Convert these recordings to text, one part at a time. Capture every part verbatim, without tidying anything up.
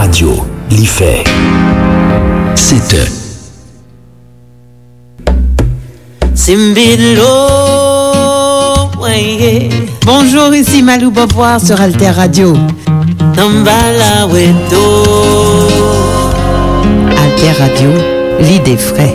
Radyo, li fè sèt è. Simbilo, mwen ye. Bonjour, ici Malou Beauvoir sur Alter Radio. Tanbala weto. Alter Radio, lide fre.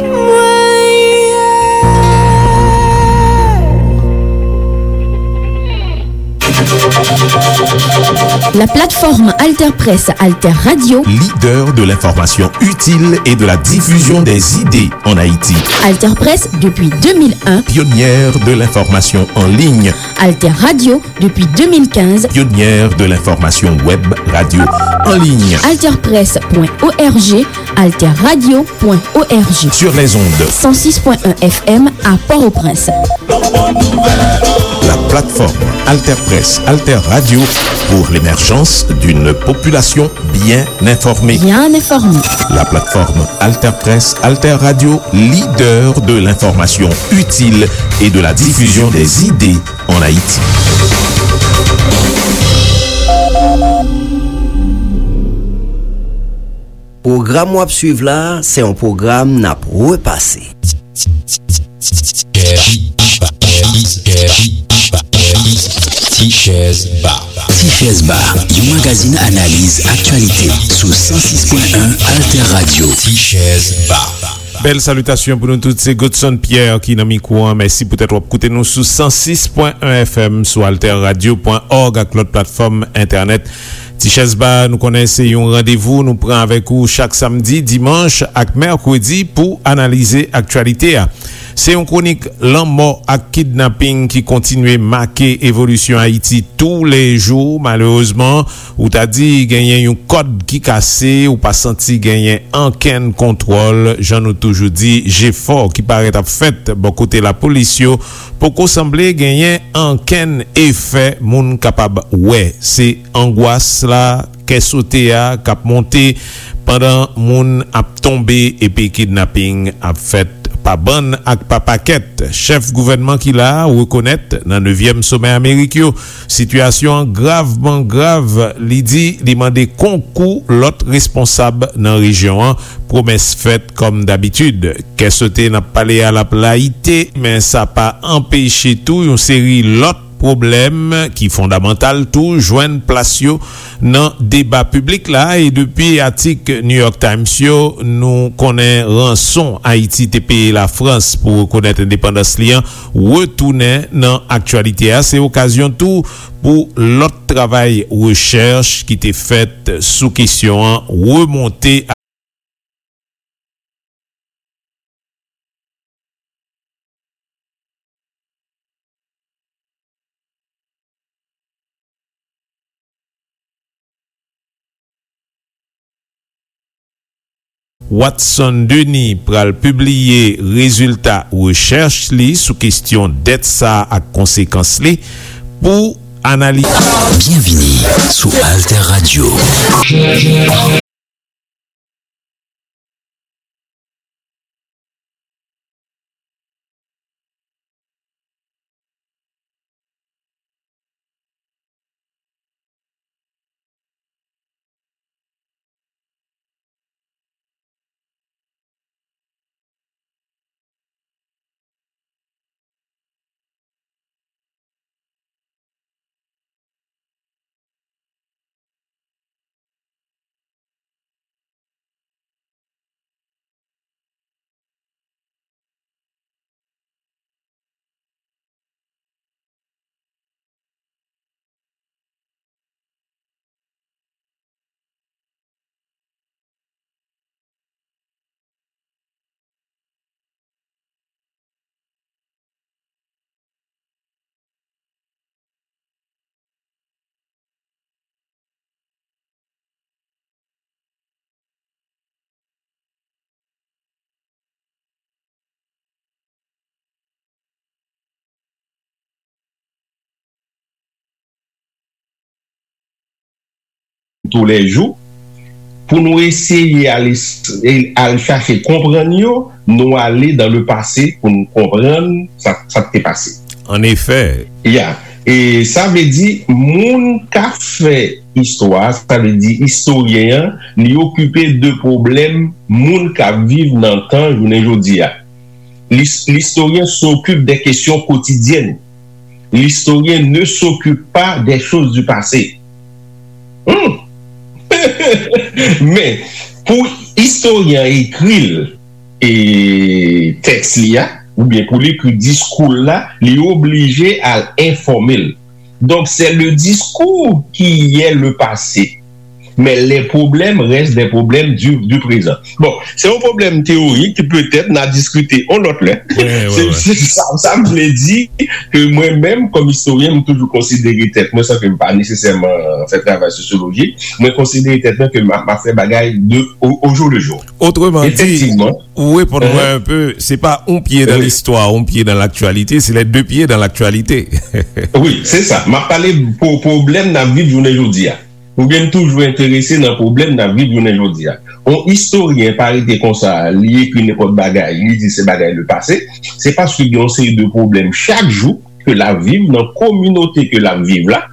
La plateforme Alter Presse Alter Radio. Leader de l'information utile et de la diffusion des idées en Haïti. Alter Presse depuis deux mille un. Pionnière de l'information en ligne. Alter Radio depuis deux mille quinze. Pionnière de l'information web radio en ligne. Alter Presse point O R G, Alter Radio point O R G. Sur les ondes. Cent six point un F M à Port-au-Prince. La plateforme Alter Presse, Alter Radio pour l'émergence d'une population bien informée. Bien informée. La plateforme Alter Presse, Alter Radio, leader de l'information utile et de la diffusion des idées en Haïti. Pwogram w ap swiv la, se yon pwogram n ap repase. Ti Chèz Ba. Ti Chèz Ba, yon magazin analiz aktyalite sou san sis pwen en Alter Radio. Ti Chèz Ba. Bèl salitasyon pou nou tout, se Godson Pierre ki nan mikwo an. Mèsi poutèt w ap koute nou sou san sis pwen en F M, sou alter radio pwen òg ak lòt platfòm entènèt. Ti Chèz Ba, nou konnen se yon randevou nou pran avèk ou chak samdi, dimanch ak mèkredi pou analize aktyalite a. Se yon kwonik lanmò ak kidnaping ki kontinye make evolisyon Ayiti toulejou. Malerezman, ou ta di genyen yon kòd ki kase, ou pa santi genyen ankenn kontwòl. Jan nou toujou di, jefò ki parèt ap fèt bò kote lapolis yo poko sanble genyen ankenn efè moun kapab wè. Se angwas la, kè sote a k ap monte pandan moun ap tonbe epi kidnaping ap fèt pa bann ak pa pakèt. Chèf gouvènman ki la a rekonèt nan nevyèm somè Amerik yo, sitiyasyon an gravman grav. Li di li mande konkou lòt responsab nan rejyon an. Pwomès fèt kòm dabitid. Kè sote n ap pale a l ap layite, men sa pa anpeche tou yon seri lòt pwoblèm ki fondamantal tou jwenn plas yo nan deba piblik la. E depi atik New York Times yo, nou konnen ranson Ayiti te peye Lafrans pou rekonèt endepandans li an retounen nan aktyalite a. Se okazyon tou pou lòt travay rechèch ki te fèt sou kesyon an remonte. Watson Denis pral pibliye rezilta rechèch li sou kesyon dèt sa a ak konsekans li pou analize. Byenvini sou Alter Radio. Toulejou, pou nou eseye al, al chache konprann yo, nou ale dans le passé pou nou konprann sa, sa k te pase. An efè. Ya. E sa vle di, moun k ap fè istwa, sa vle di istoryen an, li okipe de pwoblèm moun k ap viv nan tan jounen jodi a. L'his- L'historien s'occupe des questions quotidiennes. L'historien ne s'occupe pas des choses du passé. Hmm. Men, pou istoryen an ekri l, e, tèks li a, oubyen pou li ekri diskou l la, li oblije al enfòme l. Donc, c'est le discours qui est le passé. Mais les problèmes restent des problèmes du, du présent. Bon, se yon pwoblèm teyorik ki petèt n a diskite yon lòt lè. Se sa, sa m vle di, ke mwen menm, kòm istoryen, m toujou konsidere tèt mwen, san ke m pa nesesèman fè travay sosyoloji, mwen konsidere tèt mwen ke m ap, m ap fè bagay de, au, au jour le jour. Otreman di, ou reponn mwen un peu, se pa un pied dans l'histoire, un pied dans l'actualité, c'est les deux pieds dans l'actualité. Wi, se sa. M ap pale pou pwoblèm n ap viv jounen jodi a. Ou gen toujou enterese nan pwoblèm n ap viv jounen jodi a. Yon istoryen pa rete konsa, li ekri nenpòt bagay, li di se bagay le passé, se paske gen yon seri de pwoblèm chak jou ke l ap viv nan kominote ke l ap viv la,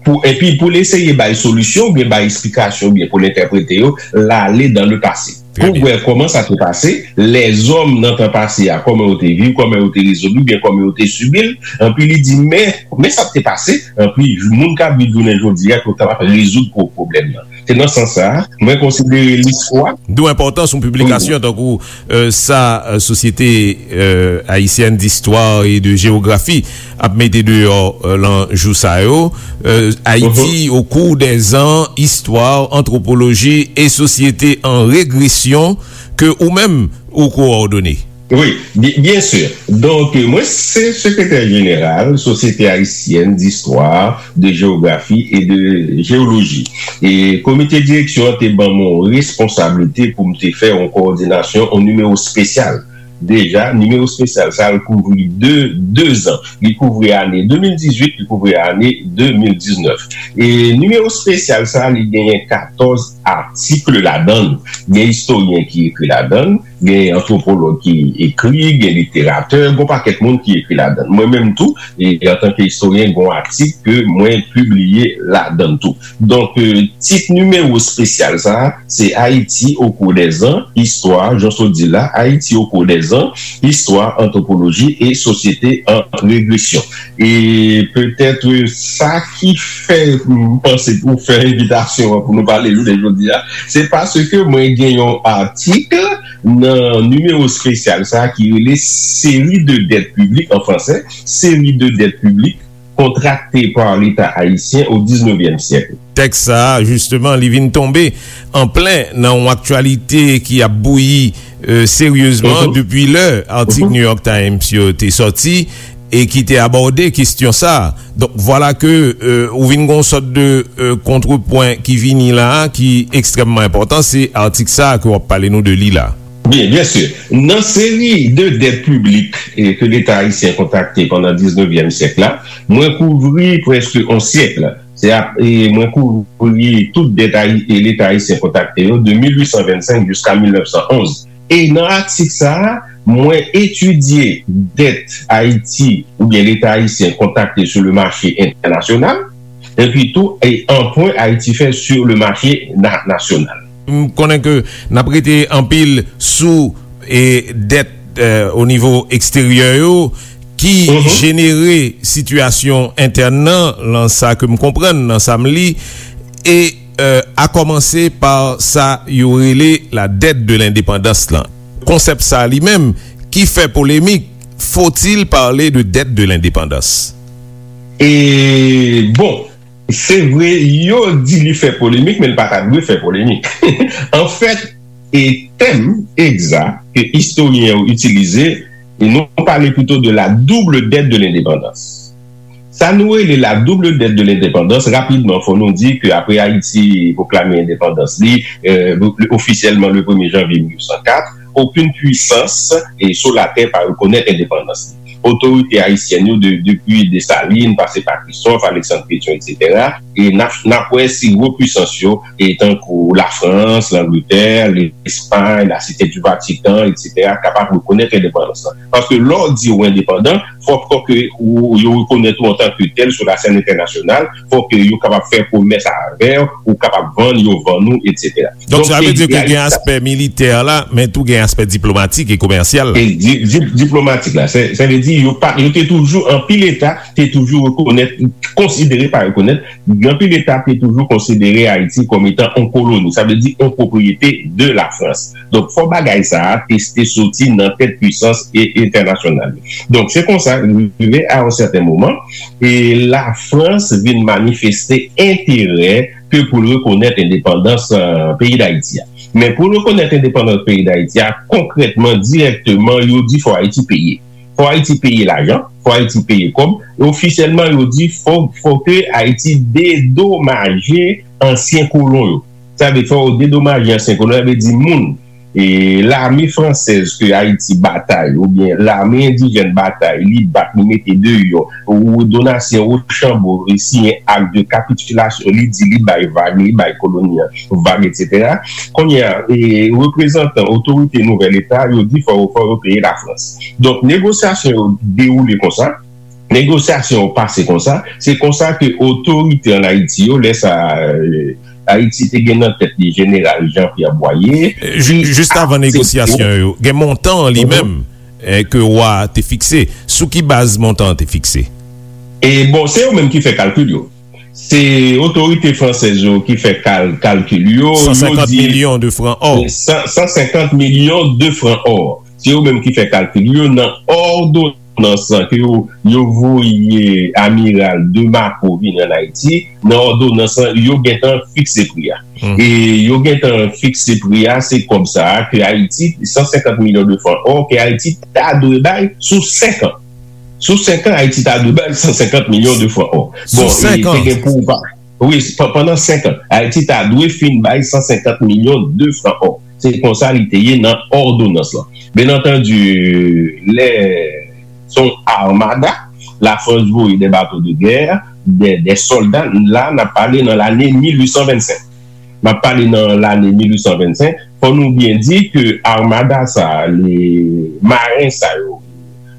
pou, epi pou l eseye bay solisyon, oubyen bay eksplikasyon, oubyen pou l entèprete yo, l ale dans le passé. Pou wè kòman sa te pase, lèzòm nan tan pase a, kòman yo te viv, kòman yo te rezoud li, oubyen kòman yo te sibi l, anpi li di, men, men sa k te pase, anpi moun k ap viv jounen jodi a, pou kapab rezoud pwo-, pwoblèm nan. Se nan sans sa a, mwen konsidere listwa. D'où enpòtans yon piblikasyon tankou, euh, sa, euh, Société, euh, Haïtienne d'Histoire et de Géographie ap mete deyò, euh, lan jou sa yo. Euh, Haïti au cours des ans, histoire, anthropologie et société en régression, ke ou menm ou kowòdone. Wi, byen, byen si. Donk, mwen se sekretè jeneral Société Haïtienne d'Histoire, de Géographie et de Géologie. E komite direksyon an te ban m yon responsablite pou m te fè yon kowòdinasyon, yon nimewo espesyal. Deja, nimewo espesyal sa a, l kouvri de, de zan. Li kouvri ane de mil dizuit, li kouvri ane de mil diznèf. E nimewo espesyal sa a, li genyen katòz atik ladan l. Gen istoryen ki ekri ladan l, gen antwopològ ki ekri, gen literatè, gen yon pakèt moun ki ekri ladan l. Mwen menm tou, e, antanke istoryen, gen yon atik ke mwen pibliye ladan l tou. Donk, euh, tit nimewo espesyal sa a, se Haïti au cours des ans, histoire, jan w sot di la, Haïti au cours des ans, histoire, anthropologie et société en régression. E petèt, euh, sa ki fè m panse pou fè envitasyon an pou nou pale jounen jodi a, se paske mwen gen yon atik nan nimewo espesyal sa a ki rele Série de dettes publiques, en français, Série de dettes publiques contractées par l'État haïtien au dix-neuvième siècle. Tèks sa a, jisteman, li vin tonbe an plen nan yon aktyalite ki ap bouyi, euh, seryezman depi lè atik New York Times yo te sòti e ki te abòde kesyon sa a. Donk, vwala ke, euh, ou vin gen yon sòt de, euh, kontrepwen ki vini la a, ki ekstrèmman enpòtan, se atik sa a ke w ap pale nou de li la. Byen, byen si. Nan seri de dèt piblik, e, ke Leta ayisyen kontrakte pandan diznevyèm syèk la, mwen kouvri prèske yon syèk. Se ap, e, mwen kouvri tout dèt ayi-, e, Leta ayisyen kontrakte yo de mil uit san vennsenk jiska mil nèf san onz. E nan atik sa a, mwen etidye dèt Ayiti oubyen Leta ayisyen kontrakte sur le marché international, epi tou, e, anpwen Ayiti fè sur le marché na-, national. M konnen ke n ap rete anpil sou, e, dèt, e, o nivo eksteryè yo ki jenere sitiyasyon entèn nan, lan sa ke m konprann, nan sa m li, e, e, a kòmanse pa sa yo rele la dette de l'indépendance lan. Konsèp sa li menm ki fè polemik, faut-il parler de dette de l'indépendance? E, bon, se vre, yo di li fè polemik, men li pa ta dwe fè polemik. Anfèt, e tèm egzak ke istoryen yo itilize, e nou pale plito de la double dette de l'indépendance. Sa nou rele la double dette de l'indépendance, rapidman, fò nou di ke apre Ayiti pwoklame endepandans li, e, ofisyèlman le premye janvye mil uit san kat, okenn pwisans, e, sou latè pa rekonèt endepandans li. otorite ayisyèn yo de, depi Desalin, pase pa Christophe, Alexandre Pétion, etsetera. E n ap, n ap wè si gwo pwisans yo, e tankou Lafrans, Langletè, Lespay, Lasite di Vatikan, etsetera, kapab rekonèt endepandans lan. Paske lè w di w endepandan, fòk, fòk ke ou, yo rekonèt ou antanke tèl sou lasèn entènasyonal, fòk ke yo kapab fè komès avè w, ou kapab vann, yo vann ou, etsetera. Donk, sa vle di ke gen aspè militè la, men tou gen aspè diplomatik e komèsyal la. E di, di, diplomatik la, sa, sa vle di yo pa, yo te toujou, anpil eta te toujou rekonèt, konsidere, pa rekonèt, anpil eta te toujou konsidere Ayiti kòm etan yon koloni, sa vle di yon pwopriyete de Lafrans. Donk, fò bagay sa a te, te soti nan tèt pwisans e, entènasyonal yo. Donk, se konsa, rive a yon sèten moman, e Lafrans vin manifeste enterè ke pou l rekonèt endepandans, eh, peyi Dayiti a. Men pou l rekonèt endepandans peyi Dayiti a, konkrètman, dirèkteman, yo di fò Ayiti peye. Fò Ayiti peye lajan, fò Ayiti peye kòb. E ofisyèlman, yo di fò, fò ke Ayiti dedomaje ansyen kolon yo. Sa vle fò yo dedomaje ansyen kolon, sa vle di moun, e lame fransèz ke Ayiti batay, oubyen lame endijèn batay, li bat, li mete deyò, ou Donatien Rochambeau, e siyen ak de kapitilasyon, li di li bay vag, li bay koloni an vag, etsetera. Kounye a, e reprezantan otorite nouvèl eta, yo di fò, fò yo peye Lafrans. Donk, negosyasyon yo dewoule konsa, negosyasyon yo pase konsa, se konsa ke otorite ann Ayiti yo, lè sa, e, Ayiti te gen nan tèt li Jeneral Jean Pierre Boyer, e, ju-, ki jis avan aksepte negosyasyon yo, gen montan an li menm, e, ke wa a te fikse. Sou ki baz montan an te fikse? E bon, se yo menm ki fè kalkil yo. Se otorite fransèz yo ki fè kal-, kalkil yo. Yo di milyon de fran ò. San, san senkant milyon de fran ò. Se yo menm ki fè kalkil yo nan òdonans lan ke yo, yo voye Amiral de Marco vini ann Ayiti. Nan òdonans lan, yo gentan fikse pri a. E yo gentan fikse pri a, se kòb sa a ke Ayiti, san senkant milyon de fran ò, ke Ayiti ta dwe bay sou senk an. Sou senk an, Ayiti ta dwe bay san senkant milyon de fran ò. Bon, e te gen pou pa, wi, pa-, pandan senk an, Ayiti ta dwe fin bay san senkant milyon de fran ò. Se konsa li te ye nan òdonans lan. Byen antandi, lè se yon armada, Lafrans voye de bato de gè, de, de sòlda, la, n ap pale nan lane mil uit san vennsenk. M ap pale nan lane mil uit san vennsenk. Fò nou byen di ke armada sa a, le, maren sa yo,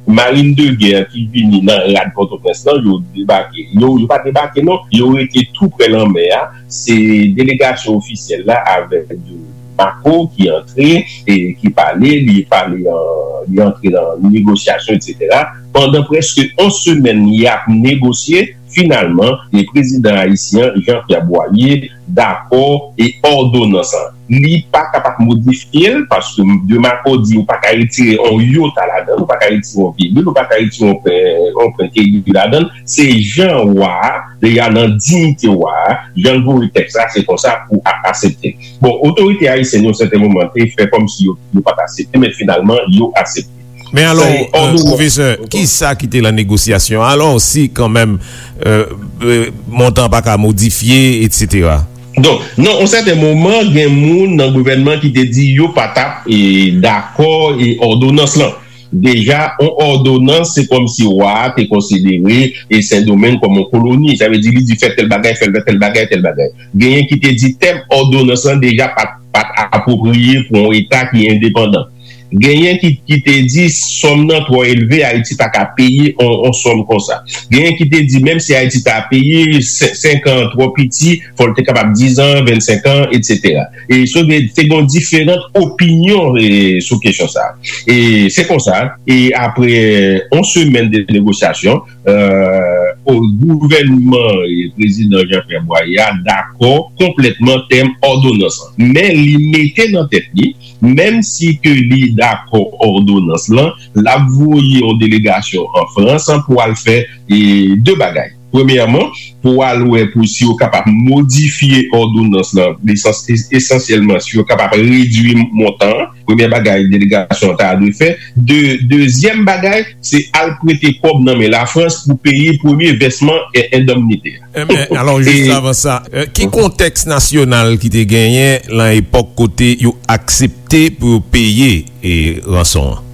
marin de gè ki vini nan rad Pòtoprens lan, yo debake. Yo, yo pa debake, non. Yo rete tou pre lanmè a. Se delegasyon ofisyèl la avèk de Marco ki antre e ki pale, li pale, euh, li antre nan negosyasyon, etsetera. Pandan prèske yon semèn, y ap negosye. Finalman, e prezidan ayisyen an, Jean Pierre Boyer, dakò e òdonans lan. Li pa kapab modifye l, paske de Marco di ou pa ka retire yon yota ladan l, ou pa ka retire yon vibil, ou pa ka retire yon pwen, yon pwen keyi ladan l. Se jan wa a, deja nan diyite wa a, jan l voye tèks la, se konsa pou a-, aksepte. Bon, otorite ayisyèn yo, sèten moman, te fè kòmsi yo, yo pa t aksepte, men finalman, yo aksepte. Men alò, pwofesè, kisa ki te lan negosyasyon? Alò, si kanmenm, euh, euh, montan pa ka modifye, etsetera. Donk, nan yon sèten moman, gen moun nan gouvènman ki te di yo pa t ap, e, dakò e òdonans lan. Deja, yon òdonans, se kòmsi wa a te konsidere e Sendomeng kòm yon koloni. Sa vle di, li di fè tèl bagay, fè tèl bagay, tèl bagay. Genyen ki te di tèm òdonans lan deja pa t, pa t apwopriye pou yon eta ki endepandan. Genyen ki, ki te di sòm nan twò elve, Ayiti pa ka peye on, on sòm konsa. Genyen ki te di menm si Ayiti ta peye sen-, senk an twò piti, fò l te kapab diz an, vennsenk an, etsetera. E so te, te gen diferan opinyon, e, sou kesyon sa a. E se konsa, e apre, e, on semèn de negosyasyon, euh, o gouvènman, e, prezidan Jean Pierre Boyer a dakò konplètman tèm òdonans lan. Men li mete nan tèt li, menm si ke li dakò òdonans lan, l ap voye yon delegasyon an Frans pou al fè, e, de bagay. Premyèman, pou al wè pou si yo kapab modifye òdonans lan, esans-, es-, esansyèlman si yo kapab redui montan an. Premyè bagay delegasyon an ta dwe fè. De-, dezyèm bagay, se al prete kòb nan men Lafrans pou peye premye vèsman e-, endemnite a. Enben, alò, jis avan sa, euh, ki kontèks nasyonal ki te genyen lan epòk kote yo aksepte pou yo peye, e, ranson an?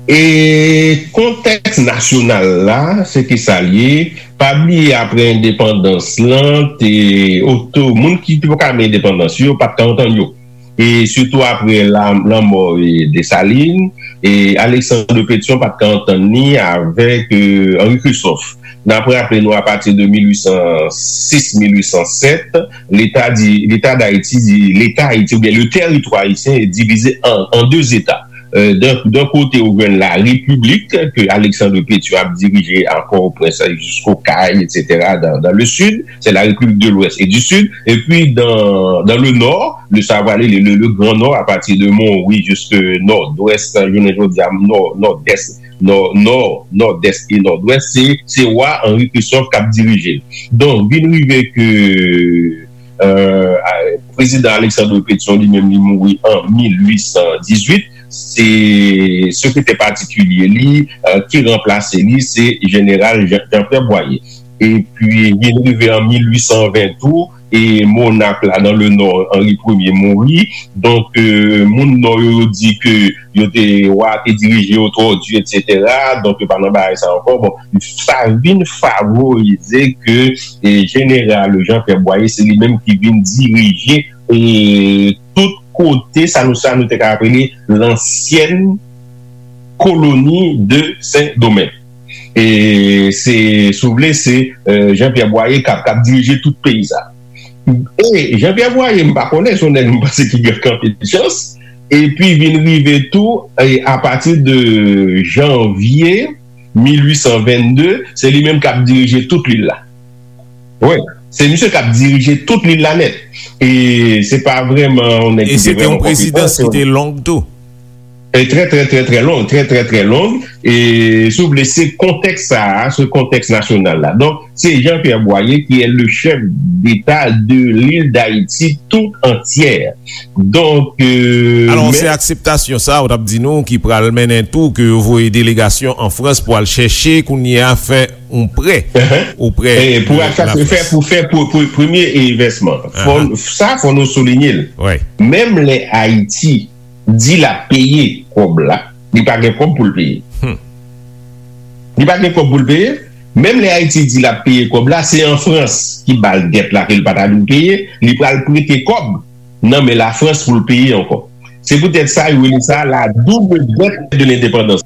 E kontèks nasyonal la, se ki sa l ye. Pa bliye, apre endepandans lan, te oto, moun ki te poko menm endepandans yo, pa t ka antann yo. E sitou apre la, lanmò, e, Desalin, e Alexandre Pétion pa t ka antann li avèk, e, Henri Christophe. N ap raple nou, apati de mil uit san sis, mil uit san sèt, Leta di, Leta Dayiti di, Leta Ayiti, oubyen le territoire haïtien est divisé en, en deux États. Euh, d'un, d'un côté, ou jwenn la République, que Alexandre Pétion ap dirije a Port-au-Prince jusqu'au Cayes, et cetera, dans, dans le sud, c'est la République de l'Ouest et du Sud. Et puis, dans, dans le nord, le, sa va aller le, le, le Grand Nord, à partir de Montrouge jusqu'à nord-ouest, jounen jodi a, nord, nord-est, nord, nord, nord-est et nord-ouest, se, se wa Henri Christophe k ap dirije l. Donk, vin rive ke, euh, a, prezidan Alexandre Pétion li menm li mouri an mil uit san dizuit, se sekretè patikilye li, euh, ki ranplase li, se jeneral Jean, Jean-Pierre Boyer. Epi, vin rive an mil uit san ven tou, e monak la nan le nò, Henri Premye mouri. Donk, euh, moun nò yo, yo di ke yo te, wa te dirije yo twò di, et cetera. Donk, yo pa nan bagay sa ankò. Bon, sa vin favorize ke, e, jeneral Jean-Pierre Boyer, se li menm ki vin dirije, e, tout kote, sa nou, sa nou te ka rele lansyèn koloni de Sendomeng. E se, si w vle, se, euh, Jean-Pierre Boyer k ap, k ap dirije tout peyi sa. E Jean-Pierre Boyer, m pa konnen, se yon nèg m panse ki gen anpil chans. Epi vin rive tou, e apati de janvye mil uit san vennde, se li menm k ap dirije tout lil la. Wi, se misye k ap dirije tout lil la nèt. E se pa vrèman yon nèg ki te vrèman konpetan. E se te yon prezidans ki te long tou. E trè, trè, trè, trè long, trè, trè, trè long. E, si w vle, se kontèks sa a, se kontèks nasyonal la. Donk, se Jean-Pierre Boyer qui est le chef d'État de l'île d'Haïti tout entière. Donk, euh, alò, men se akseptasyon sa a, ou t ap di nou, ki pral mennen tou ke yo voye delegasyon an Frans pou al chèche, kounye a, fè yon prè oprè de la Frans. Pou fè, pou fè, pou, pou premye envèsman. Fò, sa, fò nou soulinye l. Menm lè Ayiti di l ap peye kòb la, li pa gen kòb pou l peye. Li pa gen kòb pou l peye. Menm lè Ayiti di l ap peye kòb la, se an Frans ki ba l dèt la ke l pa ta dwe peye, li pral prete kòb nan men Lafrans pou l peye ankò. Se poutèt sa yo rele sa la double dette de l'indépendance.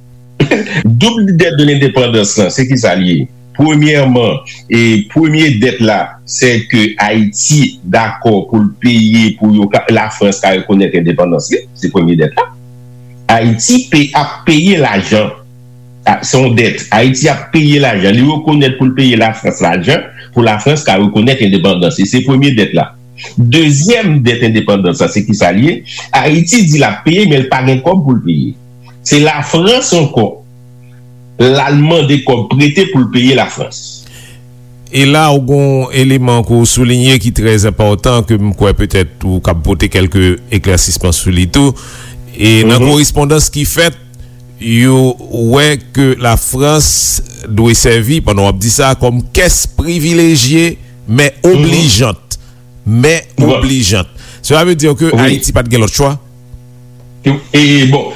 Double dette de l'indépendance lan, se ki sa l ye? Premyèman, e premye dèt la, se ke Ayiti dakò pou l peye pou yo ka, Lafrans ka rekonèt endepandans li, se premye dèt la. Ayiti pe, ap peye lajan, a, se yon dèt. Ayiti ap peye lajan, li rekonèt pou l peye Lafrans lajan, pou Lafrans ka rekonèt endepandans li, se premye dèt la. Dezyèm dèt endepandans la, se ki sa l ye? Ayiti di l ap peye, men l pa gen kòb pou l peye. Se Lafrans ankò, l al mande kòb prete pou l peye Lafrans. E la, ou gon eleman ke w soulinye ki trè enpòtan, ke m kwè petèt ou kab pote kèlke eklèsisman sou li tou. E nan korespondans ki fèt, yo wè ke Lafrans dwe sèvi, pandan w ap di sa, kòm kès privilejye, men oblijant. Men oblijant. Cela veut dire que Ayiti pa t gen lòt chwa? E, bon,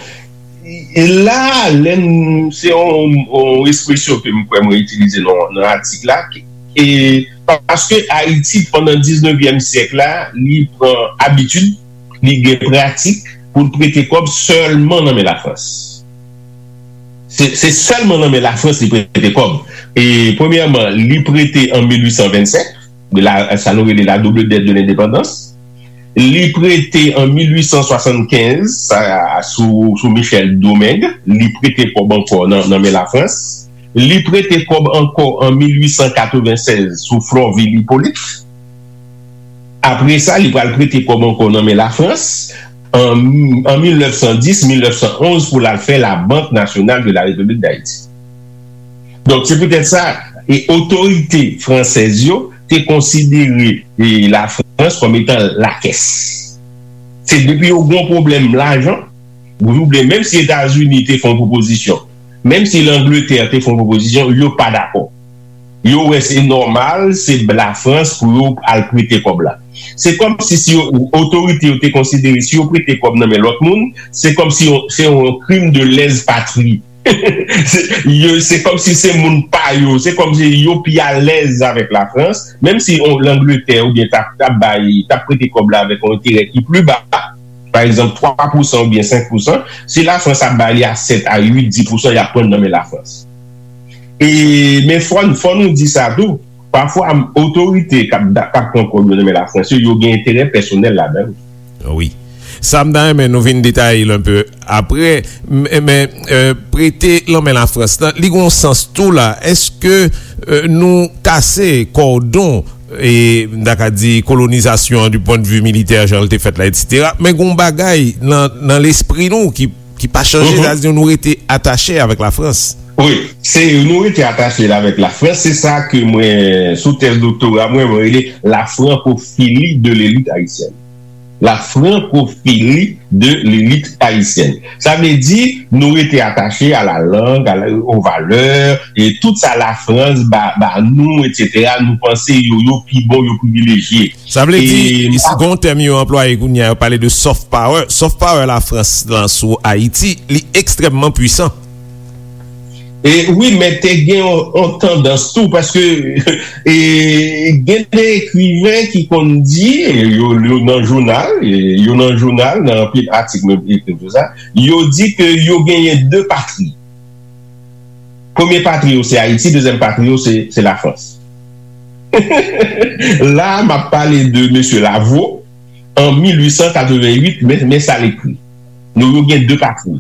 e la, lè n, se yon, yon ekspresyon ke m kwè mwen itilize nan, nan atik la, e paske Ayiti, pandan diznevyèm syèk la, li pran abitid, li gen pratik pou l prete kòb sèlman nan men Lafrans. Se, se sèlman nan men Lafrans li prete kòb. E premyèman, li prete an mil uit san vennsèt, la, sa nou rele la double dette de l'indépendance. Li prete an mil uit san swasannkenz, sa, sou, sou Michel Domingue, li prete kòb ankò nan, nan men Lafrans. Li prete kòb ankò an mil uit san katrevennsèz sou Florvil Hyppolite. Apre sa, li pral prete kòb ankò nan men Lafrans an, an mil nèf san dis, mil nèf san onz pou l al fè la Banque Nationale de la République d'Haïti. Donk, se poutèt sa, e otorite fransèz yo te konsidere, e, Lafrans kòm etan lakès. Se depi yo gon pwoblèm lajan, oubyen menm si Etazini te fè yon pwopozisyon, menm si Langletè te fè yon pwopozisyon, yo pa dakò. Yo wè se nòmal, se Lafrans pou yo al prete kòb la. Se kòm si, si yo, otorite yo te konsidere, si yo prete kòb nan men lòt moun, se kòm si yo, se yon krim de lèz patri. Se, yo, se kòmsi se moun pa yo, se kòmsi yo pi alèz avèk Lafrans, menm si on, Langletè oubyen t ap, t ap bay, t ap prete kòb la avèk yon enterè ki pli ba, pa egzanp, twa pousan oubyen senk pousan, si Lafrans ap ba li a sèt a uit, dis pousan, y ap pran nan men Lafrans. E, men fò, fò nou di sa tou, pafwa, otorite k ap, k ap pran kòb yo nan men Lafrans yo, yo gen enterè pèsonèl ladan l. Wi. Sa m ta renmen nou vin detaye l enpe apre, men, men, euh, prete lanmen Lafrans lan, li gon sans tou la. Èske, euh, nou kase kòdon, e, m ta ka di, kolonizasyon an du point de vue militè, jan l te fèt la, etsetera. Men gon bagay nan, nan lespri nou ki, ki pa chanje, sa di nou rete atache avèk Lafrans. Wi, se nou rete atache la avèk Lafrans, se sa ke mwen, sou tèz doktora mwen, mwen rele la francophilie de l'élite haïtienne. La francophilie de l'élite haïtienne. Sa vle di, nou rete atache a la lang, a la, aux valeurs, e tout sa Lafrans ba, ba nou, etsetera. Nou panse yo, yo pi bon, yo privilejye. Sa vle di, gon tèm yo anplwaye kounye a, yo pale de soft power. Soft power Lafrans lan sou Ayiti, li ekstrèmman pwisan. E wi, men te gen yon, yon tandans tou, paske e, gen de ekriven ki konn di, e, yo, yo nan jounal, e, yo nan jounal, nan anpil atik menm, e, tout sa, yo di ke yo genyen de patri. Premye patri yo se Ayiti, dezyèm patri yo se, se Lafrans. La, m ap pale de mesye Lavaux, an mil ui san katreven uit, men, men sa l ekri. Nou, yo gen de patri.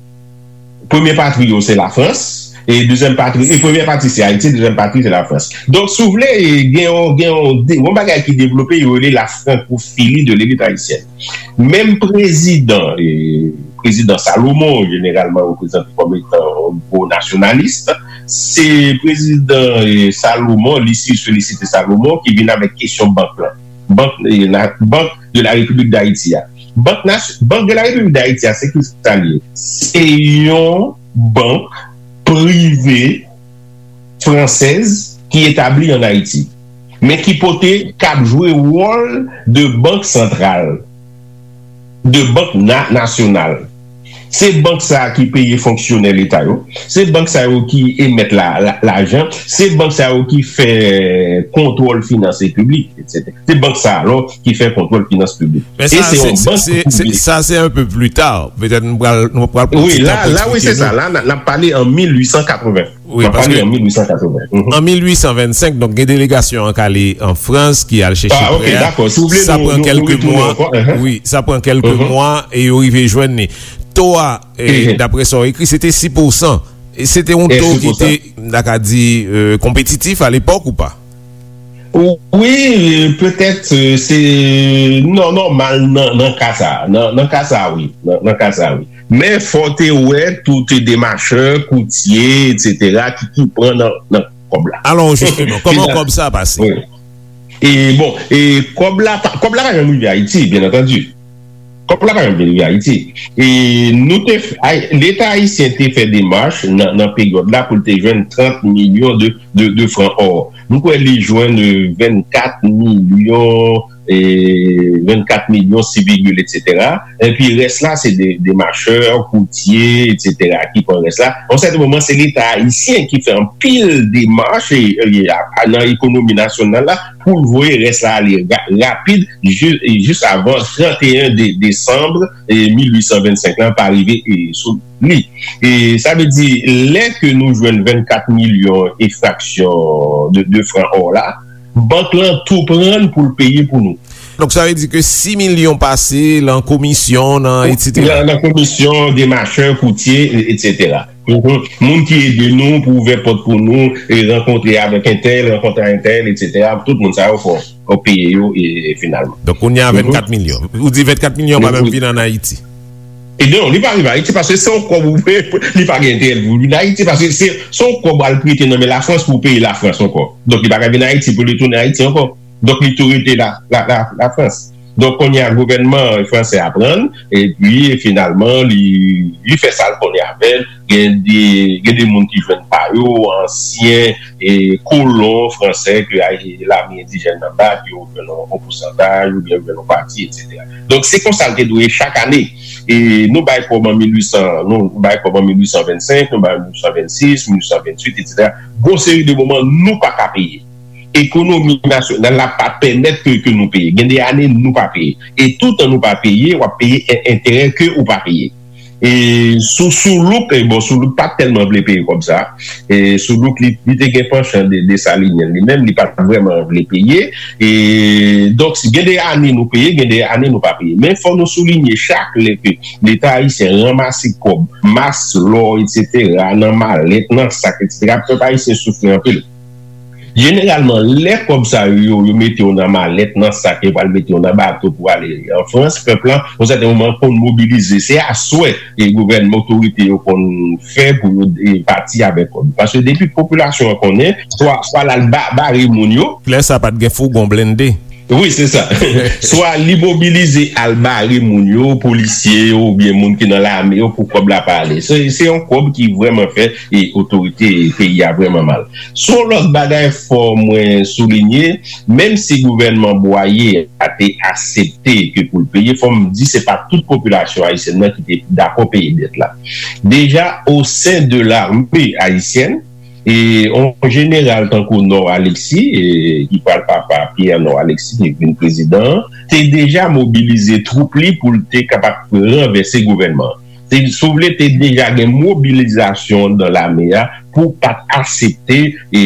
Premye patri yo se Lafrans, e dezyèm patri, e premyè patri se Ayiti, dezyèm patri se Lafrans. Donk, si w vle, e, gen yon, gen yon, de, yon bagay ki devlope, yo rele la francophilie de l'élite haïtienne. Menm prezidan, e, prezidan Salomon, jeneralman reprezante kòm etan yon gwo nasyonalis, se prezidan, e, Salomon, Lucius Félicité Salomon, ki vin avèk kesyon bank lan. Bank, e, la, Banque de la République d'Haïti a. Bank nas-, Banque de la République d'Haïti a, se ki sa l ye? Se yon bank prive fransèz ki etabli an Ayiti, men ki pote, k ap jwe wòl de bank santral, de bank na-, nasyonal. Se bank sa a ki peye fonksyonè leta yo, se bank sa yo ki emèt la, la, lajan, se bank sa yo ki fè kontwòl finans piblik, etsetera. Se bank sa a, alò, ki fè kontwòl finans piblik. Men e sa, se se, yon se, bank se, se, prive. Sa, se un peu plus tard. Petèt nou pral, nou pral pran ti tan pou eksplike nou. Wi, la, la, wi, se sa. La, n a, n ap pale an mil ui san katreven. Wi, paske an mil ui san katreven. Mhm. An mil ui san vennsenk, donk, gen delegasyon an k ale an Frans, ki al chèche prè a. Ah, ok, dakò. Si w vle, sa pran kèlke mwa. Wi, sa pran kèlke mwa e yo rive jwenn li. To a, e, daprè sa w ekri, se te sis pousan. E se te yon to ki te, m ta ka di, e, konpetitif alepòk ou pa? Wi, petèt, e, se nò-, nòmal nan, nan ka sa a. Nan, nan ka sa a, wi. Nan, nan ka sa a, wi. Men fò w te wè tout demachè, koutye, etsetera, ki, ki pran nan, nan kòb la. Alò, jisteman, kòman kòb sa a pase? Wi. E bon, e kòb la pa, kòb la pa janm rive Ayiti, byen antandi. Kòb la pa janm vin rive Ayiti. E nou te f-, ay-, Leta ayisyen te fè demach nan, nan peryòd la pou l te jwenn trant milyon de, de, de fran ò. M kwè li jwenn, e, vennkat milyon, e, vennkat milyon sis vigil, etsetera. Epi rès la, se de, demachè, koutye, etsetera, ki pran rès la. Yon sèten moman, se Leta ayisyen ki fè anpil demach, e, e, a, a, nan ekonomi nasyonal la, pou l voye rès la ale ra-, rapid, ji-, e, jis avan trant e en de-, desanm, e, mil ui san vennsenk lan pa rive, e, sou li. E sa vle di, lè ke nou jwenn vennkat milyon e fraksyon de, de fran ò la, bank lan tou pran l pou l peye pou nou. Donk, sa vle di ke sis milyon pase lan komisyon, nan etsetera. Nan, nan komisyon, demachè, koutye, e, etsetera. Mhm. Moun ki ede nou pou ouvè pòt pou nou, e rankontre avèk entèl, rankontre entèl, etsetera. Tout moun sa yo fò, fò peye yo, e, e finalman. Donk, kounye a vennkat milyon. Ou di vennkat milyon pa menm vin ann Ayiti? E non, li pa rive Ayiti paske se yon kòb ou, li pa gen enterè pou vin Ayiti paske se, se yon kòb al prete nan men Lafrans pou peye Lafrans ankò. Donk, li pa ka vin Ayiti pou li tounen Ayiti ankò. Donk, li tou rete la, la, la, Lafrans. Donk, kounye a, gouvènman fransè a pran l, epi, finalman, li, li fè sa l konnen avè l. Gen de, gen de moun ki jwenn pa yo, ansyen, e, kolon fransè ke, a, e, lame endijèn nan bat, yo jwenn yon, yon pousantaj, oubyen yo jwenn yon pati, etsetera. Donk, se konsa l te dwe ye chak ane. E nou bay kòb an mil uit san, nou bay kòb an mil uit san vennsenk, nou bay mil uit san vennsis, mil uit san vennwit, etsetera. Gon seri de moman, nou pa ka peye. Ekonomi nasyonal la pa pèmèt ke, ke nou peye. Gen de ane, nou pa peye. E toutan nou pa peye, w ap peye en-, enterè ke ou pa peye. E sou, sou Soulouk, e bon, Soulouk pa tèlman vle peye kòb sa. E Soulouk, li, li te gen panchan de, Desalinyen li menm, li pa t vrèman vle peye. E donk, si gen de ane nou peye, gen de ane nou pa peye. Men fò nou soulinye chak lè ke Leta ayisyen ranmase kòb, mas, lò, etsetera, nan malèt, nan sak, etsetera, pèp ayisyen soufri anpil. Jeneralman, lè kòb sa yo, yo, yo mete yo nan malèt, nan sak, yo pral mete yo nan bato pou ale an Frans, pèp la, yon sèten moman, konn mobilize. Se aswè, e gouvènman, otorite yo konn fè pou yo, e, pati avèk kòb. Paske depi popilasyon an konnen, swa, swa l al ba-, bare moun yo. Lè sa pa t gen fougon blende. Wi, se sa. Swa li mobilize al bare moun yo, polisye yo, oubyen moun ki nan lame yo, pou kòb la pa ale. Se, se yon kòb ki vrèman fè, e, otorite peyi a vrèman mal. Sou yon lòt bagay, fò mwen soulinye, menm si gouvènman Bwaye a te aksepte ke pou l peye, fò m di se pa tout popilasyon ayisyèn nan ki te dakò peye dèt la. Deja, o sen de lame ayisyèn, e yon jeneral tankou Nò Alexis, e, ki pral papa Pierre Nò Alexis, ki vin prezidan an, te deja mobilize twoup li pou l te kapab ranvèse gouvènman an. Te, si w vle, te deja gen mobilizasyon anndan lame a pou pa t aksepte, e,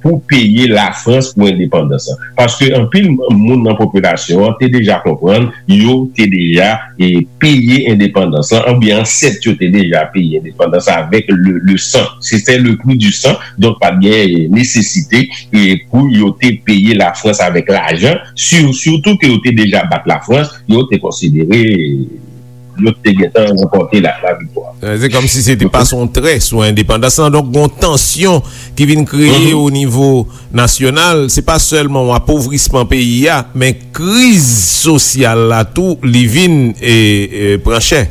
pou peye Lafrans pou endepandans lan. Paske anpil moun nan popilasyon an te deja konprann, yo te deja, e, peye endepandans lan, oubyen ansèt yo te deja peye endepandans lan avèk le, le sang. C'était le prix du sang, donk pa t gen, e, nesesite, e, pou yo te peye Lafrans avèk lajan, si-, sitou ke yo te deja bat Lafrans, yo te konsidere, e, yo te gentan ranpòte la, laviktwa. Se kòmsi se te pase yon trè sou endepandans lan. Donk, gon tansyon ki vin kreye o nivo nasyonal. Se pa sèlman yon apovrisman peyi a, men kriz sosyal la tou, li vin, e, e, pran chè.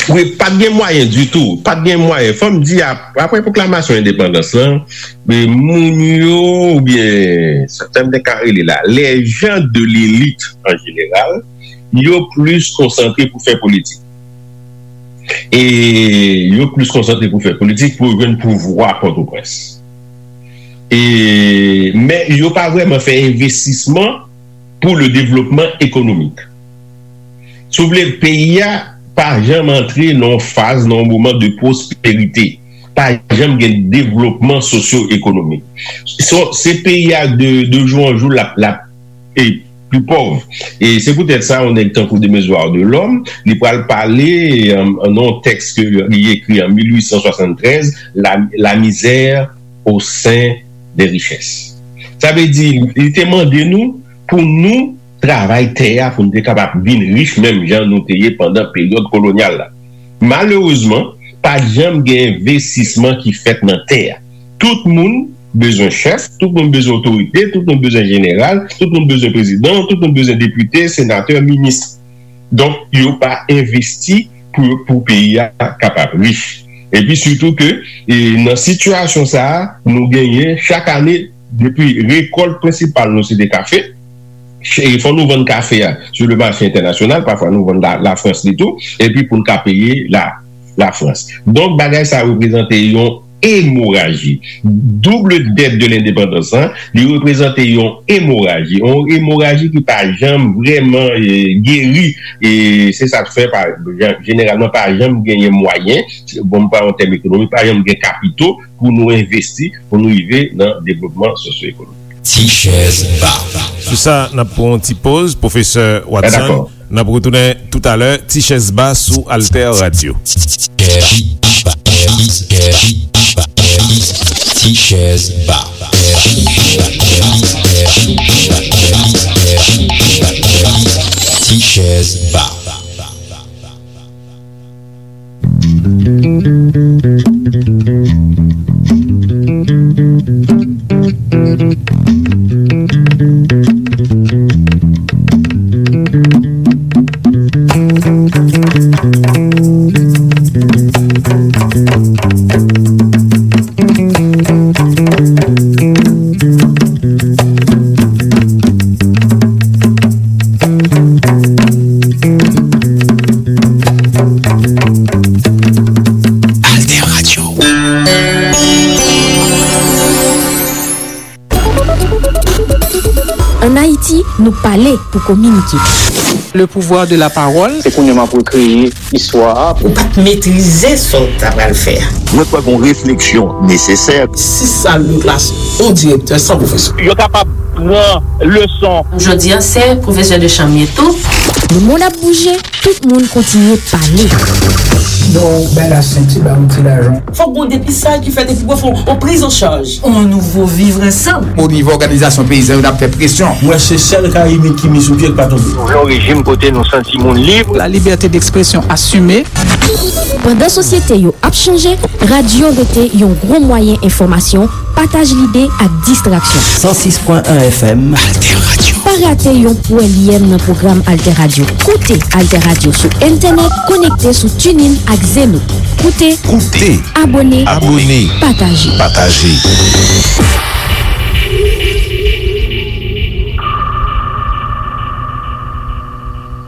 Wi, pa t gen mwayen ditou. Pa t gen mwayen. Fò m di, ap-, apre pwoklamasyon endepandans lan, e, moun yo, oubyen, sa m te ka rele la, les gens de l'élite en général, yo plis konsantre pou fè politik. E yo plis konsantre pou fè politik, pou yo jwenn pouvwa Pòtoprens. E, men yo pa vrèman fè envestisman pou le développement économique. Si w vle, peyi a pa janm antre nan yon faz, nan yon moman de pwosperite. Pa janm gen devlopman sosyo-ekonomik. Se, se peyi a de, de jou an jou l ap, l ap e pli pòv. E se poutèt sa, yon nèg tankou Demezuar Delòm, li pral pale, e, nan yon tèks ke li ekri an mil uit san swasanntrèz, La, La misère au sein des richesses. Sa vle di, li te mande nou pou nou travay tè a, pou nou te kapab vin rich menm jan nou te ye pandan peryòd kolonyal la. Malerezman, pa t janm gen envestisman ki fèt nan tè a. Tout moun bezwen chèf, tout moun bezwen otorite, tout moun bezwen jeneral, tout moun bezwen prezidan, tout moun bezwen depite, senatè, minis. Donk, yo pa envesti pou, pou peyi a kapab rich. Epi sitou ke, e, nan sitiyasyon sa a, nou genyen chak ane, depi rekòlt prensipal nou se te kafe, e fò nou vann kafe a sou le mache entènasyonal, pafwa nou vann la, Lafrans li tou, epi pou n ka peye la, Lafrans. Donk, bagay sa reprezante yon emoraji. Double dette de l'indépendance, hein, li reprezante yon emoraji. Yon emoraji ki pa janm vrèman, e, geri. E se sa k fè, pa, jeneralman, pa janm genyen mwayen, bon, m pran yon tèm ekonomik, pa janm gen kapito pou nou envesti, pou nou rive nan devlopman sosyo-ekonomik. Ti chèz ba. Sou sa, n ap pran yon ti poz, pwofesè Watson. N ap retounen toutalè, Ti chèz ba sou Alter Radio. Ti chèz ba. Ti chèz ba. Nou pale pou kominike. Le pouvoir de la parole. Se kounye a m ap rekreye istwa a. Ou pa t metrize sa w ta pral fè a. Mwen kwè gon refleksyon nesesè. Sis sal de klas, yon direktè san pwofesè. Yo kapab pran leson. Jodi a, se pwofesè de chanm ye tou. Le monde ap bouje, tout moun kontinye pale. Bon, bay la senti, ba yon ti lajan. Fòk gon depistaj ki fèt epi pou fè yon priz an chaj. On nouvo vivre ensemble. O nivo òganizasyon peyizan yo, n ap fè presyon. Mwen se sèl Karibik ki mi sou pye k pa tonbe. Nou vle yon rejim kote nou santi moun lib. La liberté d'expression assumée. Pandan sosyete yo ap chanje, radyo rete yon gwo mwayen enfòmasyon, pataj lide ak distraksyon. San sis pwen en F M. Alter Radio. Pa rate yon pwèlyèm nan pwogram Alter Radio. Koute Alter Radio sou entènèt, konekte sou TuneIn ak Zeno. Koute, Koute. Abòne, Abòne. Pataje. Pataje.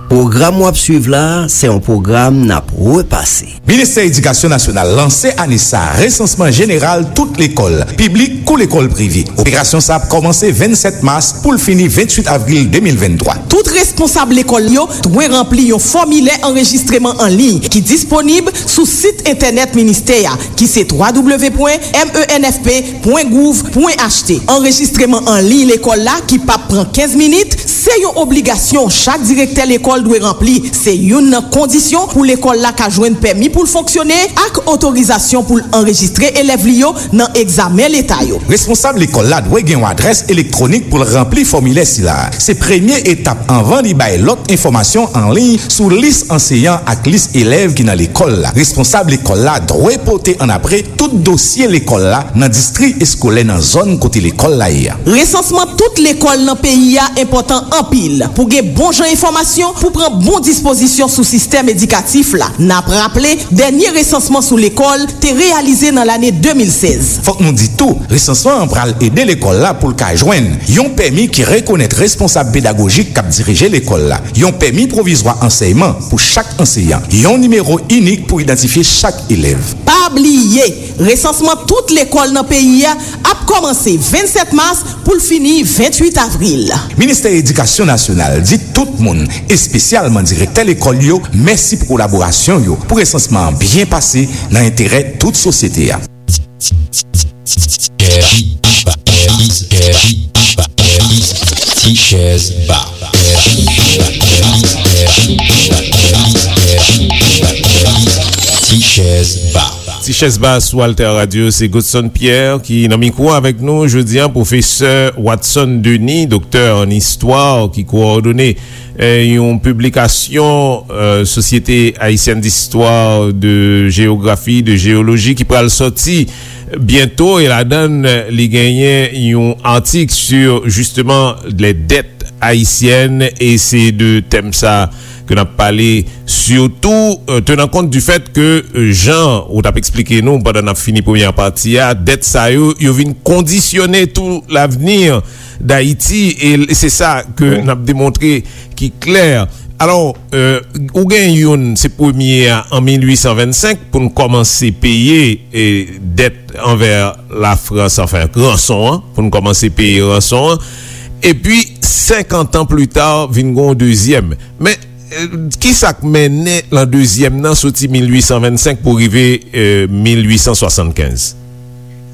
Pwogram w ap swiv la, se yon pwogram n ap repase. Ministè Edikasyon Nasyonal lanse ane sa a resansman jeneral tout lekòl, piblik kou lekòl prive. Operasyon sa a ap kòmanse vennsèt mas pou l fini venntwit avril de mil venntwa. Tout responsab lekòl yo dwe ranpli yon fòmilè anrejistreman an liy ki disponib sou sit entènèt ministè a, ki se twa w pwen M E N F P pwen gouv pwen H T. Anrejistreman an liy lekòl la, ki p ap pran kenz minit, se yon obligasyon chak direktè lekòl dwe ranpli. Se youn nan kondisyon pou lekòl la ka jwenn pèmi pou l fonksyone ak otorizasyon pou l anrejistre elèv li yo nan egzamen leta yo. Responsab lekòl la dwe gen yon adrès elektwonik pou l ranpli fòmilè sila a. Se premye etap anvan li bay lòt enfòmasyon an liy sou lis anseyan ak lis elèv ki nan lekòl la. Responsab lekòl la dwe pote annapre tout dosye lekòl la nan distri eskolè nan zòn kote lekòl la ye a. Resansman tout lekòl nan peyi a enpòtan anpil pou gen bon jan enfòmasyon pou pran bon dispozisyon sou sistèm edikatif la. N ap raple, dènye resansman sou lekòl te reyalize nan lane de mil sèz. Fòk nou di tou, resansman an pral ede lekòl la pou l ka jwenn yon pèmi ki rekonèt responsab pedagojik k ap dirije lekòl la, yon pèmi pwovizwa ansèyman pou chak anseyan, yon nimewo inik pou idantifye chak elèv. Pa bliye, resansman tout lekòl nan peyi a ap kòmanse vennsèt mas pou l fini venntwit avril. Ministè Edikasyon Nasyonal di tout moun, espesyalman direktè lekòl yo, mèsi pou kolaborasyon yo pou resansman an byen pase nan enterè tout sosyete a. Ti chèz ba. Ti chèz ba. Ti chèz ba sou Alter Radio, se Godson Pierre ki nan mikwo avèk nou jodi a, pwofesè Watson Denis, doktè an istwa, ki kowòdone, eh, yon piblikasyon, eh, Société Haïtienne d'Histoire, de Géographie, de Géologie, ki pral sòti byento, e ladan l, li genyen yon atik sur, justement, les dettes haïtiennes, e se de tèm sa ke n ap pale, sitou, euh, tenant compte du fait que, euh, jan ou t ap eksplike nou pandan n ap fini premyè pati a, dèt sa yo, yo vin kondisyone tou lavni Dayiti, e l-, se sa ke n ap demontre ki klè. Alò, euh, ou gen youn, se premye a, an mil uit san vennsenk, pou n kòmanse peye, e, dèt anvè Lafrans, anfen, ranson an, pou n kòmanse peye ranson an. Epi, senkant an pli ta, vin gen yon dezyèm. Men, eh, ki sa k mennen lan dezyèm nan soti mil uit san vennsenk pou rive, eh, mil uit san swasannkenz?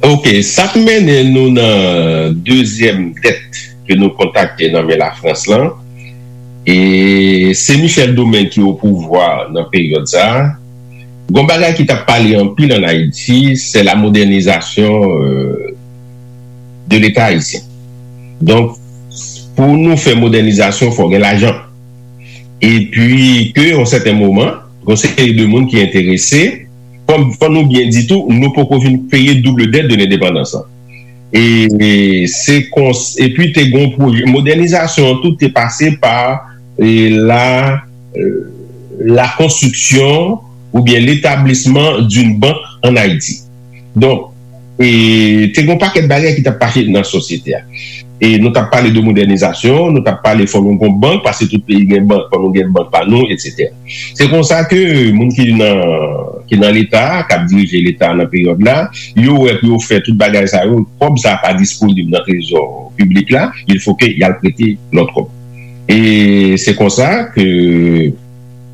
Ok, sa k mennen nou nan dezyèm dèt ke nou kontakte nan men Lafrans lan, e se Michel Domingue ki o pouvwa nan peryòd sa a. Gon bagay ki t ap pale anpil ann Ayiti, se la modènizasyon, euh, de Leta ayisyen. Donk, pou nou fè modènizasyon, fò gen lajan. Epi ke, yon sèten moman, gon seri de moun ki enterese, fò, fò nou byen di tou, nou poko fin peye double dette de l'indépendance lan. E, e se kons-, epi te gon pwojè, modènizasyon an tou te pase pa, e, la, e, la construction ou bien l'établissement d'une banque en Haïti. Donk, e, te gen yon pakèt bagay ki t ap pase nan sosyete a. E nou t ap pale de modènizasyon, nou t ap pale fò nou gon bank, paske tout peyi gen bank, fò nou gen bank pa nou, etsetera. Se konsa ke moun ki nan, ki nan Leta a, k ap dirije Leta a nan peryòd la, yo wè pou yo fè tout bagay sa yo, kòb sa a pa disponib nan trezò piblik la, il faut que y al prete lòt kòb. E se konsa ke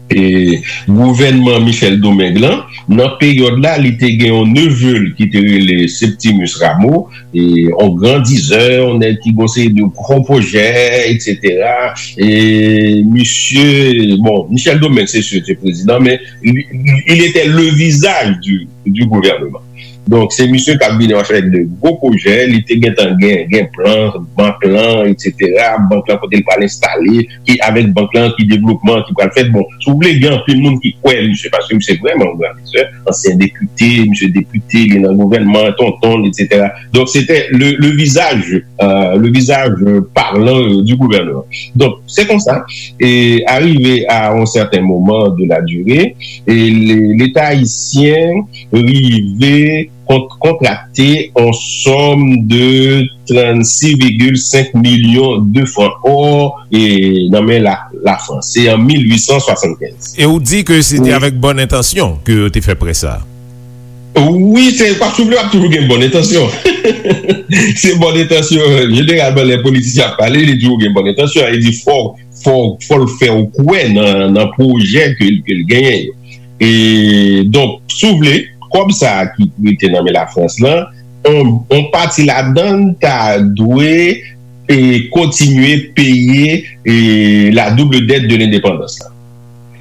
e, gouvènman Michel Domingue lan, nan peryòd la, li te gen yon neve l ki te rele Septimus Rameau, e, yon gran dizè, yon nèg ki gen yon seri de gwo pwojè, etsetera. E misye, bon, Michel Domingue, se si, te prezidan, men li, li, il était le visage du, du gouvernement. Donk, se misye k ap vini avèk de gwo pwojè, li te gentan gen, gen plan, bank lan, etsetera, bank lan kote l pral enstale, ki avèk bank lan, ki devlopman ki pral fèt. Bon, si w vle, gen anpil moun ki kwè misye, paske misye vrèman yon gran lizè, ansyen depite, misye depite, li nan gouvènman, tonton l, etsetera. Donk, se te le, le visage, euh, le visage parlant, euh, du gouvernement. Donk, se konsa, e arive a yon sèten moman de la durée, e le, Leta ayisyen rive kont-, kontrakte yon sòm de trannsis vigil senk milyon de fran ò, e, nan men la, Lafrans. Se an mil uit san swasannkenz. E ou di ke se te avèk bòn entansyon ke yo te fè prè sa? Wi, se, pa souvle, ap toujou gen bòn entansyon. Se bòn entansyon. Jeneralman, lè politisyen ap pale, li toujou gen bòn entansyon. Li di fò, fò, fò l fè w kwè nan, nan pwojè ke, ke l genyen yo. E, donk, si w vle, kòb sa a ki rete nan men Lafrans lan, on, on pati ladan l ta dwe, e, kontinye peye, e, la double dette de l'indépendance la.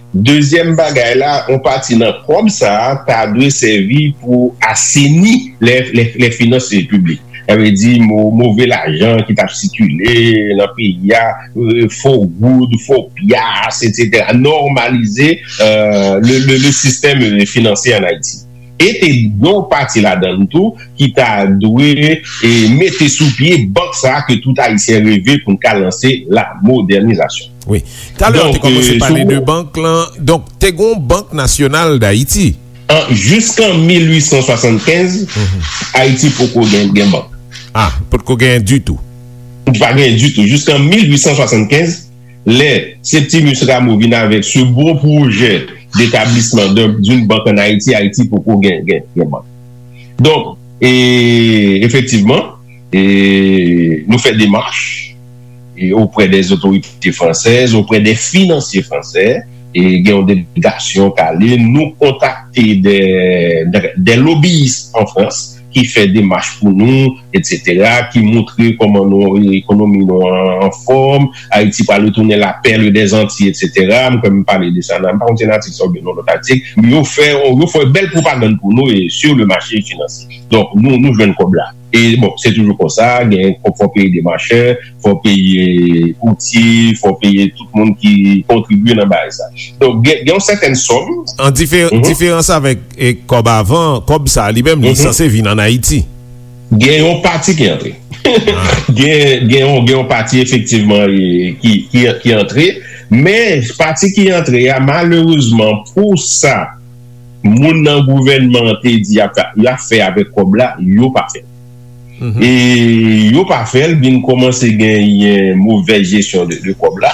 Dezyèm bagay la, on pati nan kòb sa a ta dwe sèvi pou aseni lè, lè, lè finans piblik. Sa vle di mo-, move lajan ki t ap sikile nan peyi a, e, fo goud, fo pyas, etsetera. Nòmalize, e, le, le, le sistèm, e, finansye ann Ayiti. E te gen yon pati ladan l tou ki ta dwe, e, mete sou pye bank sa a ke tout Ayisyen reve pou n ka lanse la modènizasyon. Wi. Talè w te kòmanse pale de bank lan. Donk, te gen yon Bank Nasyonal d Ayiti. An, jiskan mil uit san swasannkenz, Ayiti poko gen, gen bank. Ah, potko gen ditou. Pa gen ditou. Jiskan mil uit san swasannkenz, lè Septimus Rameau vin avèk se bon pwojè d'établissement d'un, d'une banque en Haïti, Ayiti poko gen, gen, gen bank. Donk, e, efektivman, e, nou fè demach, e, auprès des autorités françaises, auprès des financiers français, e, gen yon delegasyon k ale, nou kontakte des, des, des lobbyistes en France ki fè demach pou nou, etsetera, ki montre kòman nou, ekonomi nou an, an fòm, Ayiti pral retounen la perle des Antilles, etsetera. M kwè m pale de sa nan, m pa konn si nan atik sa oubyen nan lòt atik, men yo fè, yo fè bèl pwopagann pou nou e sur le marché financier. Donk, nou, nou jwenn kòb la. E bon, se toujou konsa, gen, fò, fò peye demachè, fò peye koutye, fò peye tout moun ki kontribye nan bagay sa. Donk, gen, gen yon sètèn sòm. An difer-, diferans avèk, e, kòb avan, kòb sa li menm, li sanse vin ann Ayiti. Gen yon pati ki antre. Gen, gen yon, gen yon pati efektivman, e, ki, ki, ki antre. Men pati ki antre a, malerezman, pou sa moun nan gouvènman an te di y ap, y ap fè avèk kòb la, yo pa fè l. E yo pa fè l, vin kòmanse genyen movèz jesyon de, de kòb la.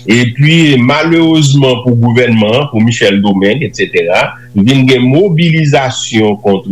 Epi, malerezman pou gouvènman an, pou Michel Domingue, etsetera, vin gen mobilizasyon kont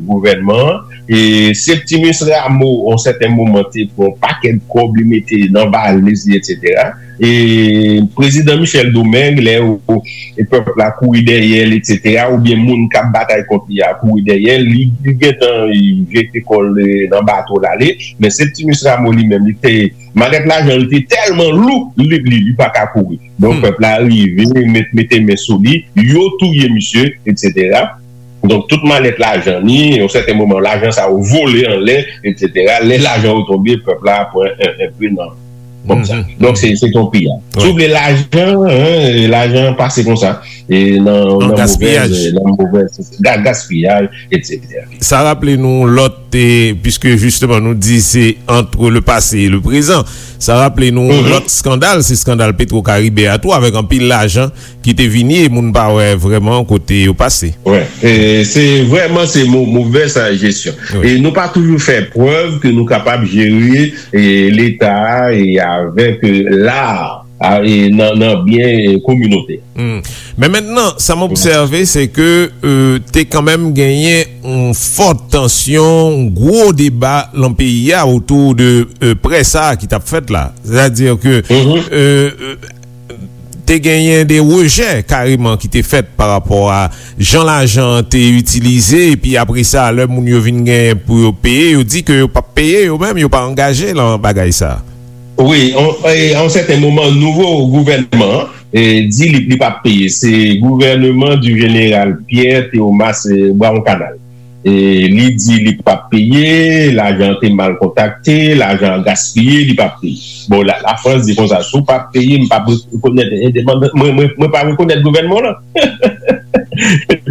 gouvènman an. E Septimus Rameau, yon sèten moman, te pran yon pakèt kòb, li mete nan valiz li, etsetera. E prezidan Michel Domingue, lè ou, e pèp la kouri dèyè l, etsetera, oubyen moun k ap batay kont li a kouri dèyè l, li, li gentan, e, jete kò l, e, nan bato l ale. Men Septimus Rameau li menm, li te, malèt lajan li te tèlman lou, li, li, li pa ka kouri. Donk, pèp la rive, met, mete men sou li, yo touye misye, etsetera. Donk, tout malèt lajan li, yon sèten moman, lajan sa yo vole anlè, etsetera. Lè lajan yo tonbe, pèp la pran en, en pe nan kòb sa. Donk, se, se yon piyaj. Si w vle lajan, en, lajan pase konsa. E nan, nan movèz, nan movèz, ga-, gaspiyaj, etsetera. Sa raple nou lòt, e, puisque justement nou di se entre le passé et le présent, sa raple nou lòt skandal, se skandal Petro Caribe a tou, avèk anpil lajan ki te vini e moun pa wè vrèman kote yo pase. Wi, e se vrèman se mo-, movèz jesyon. Wi. E nou pa toujou fè prèv ke nou kapab jere, e, Leta a e avèk, e, lar. a, e nan, nan byen, e, kominotè. Hmm. Men mentnan, sa m obsève, se ke, euh, te kanmenm genyen yon fò tansyon, yon gwo deba nan peyi a otou de, euh, prè sa a ki t ap fèt la. Sètadi ke, euh, euh, te genyen de rejè kareman ki te fèt pa rapò a jan lajan an te itilize, epi apre sa, lè moun yo vin genyen pou yo peye, yo di ke yo p ap peye yo menm, yo pa angaje nan bagay sa a. Wi, an, e, a yon sèten moman, nouvo gouvènman an, e, di li, li p ap peye. Se gouvèneman di jeneral Pierre Théomas, e, Brawon Kanal. E, li di li p ap peye, lajan an te mal kontakte, lajan an gaspiye, li p ap peye. Bon, la, Lafrans di konsa, si w p ap peye, m p ap rekonèt endepandans, mwen, mwen, mwen pa rekonèt gouvènman w lan.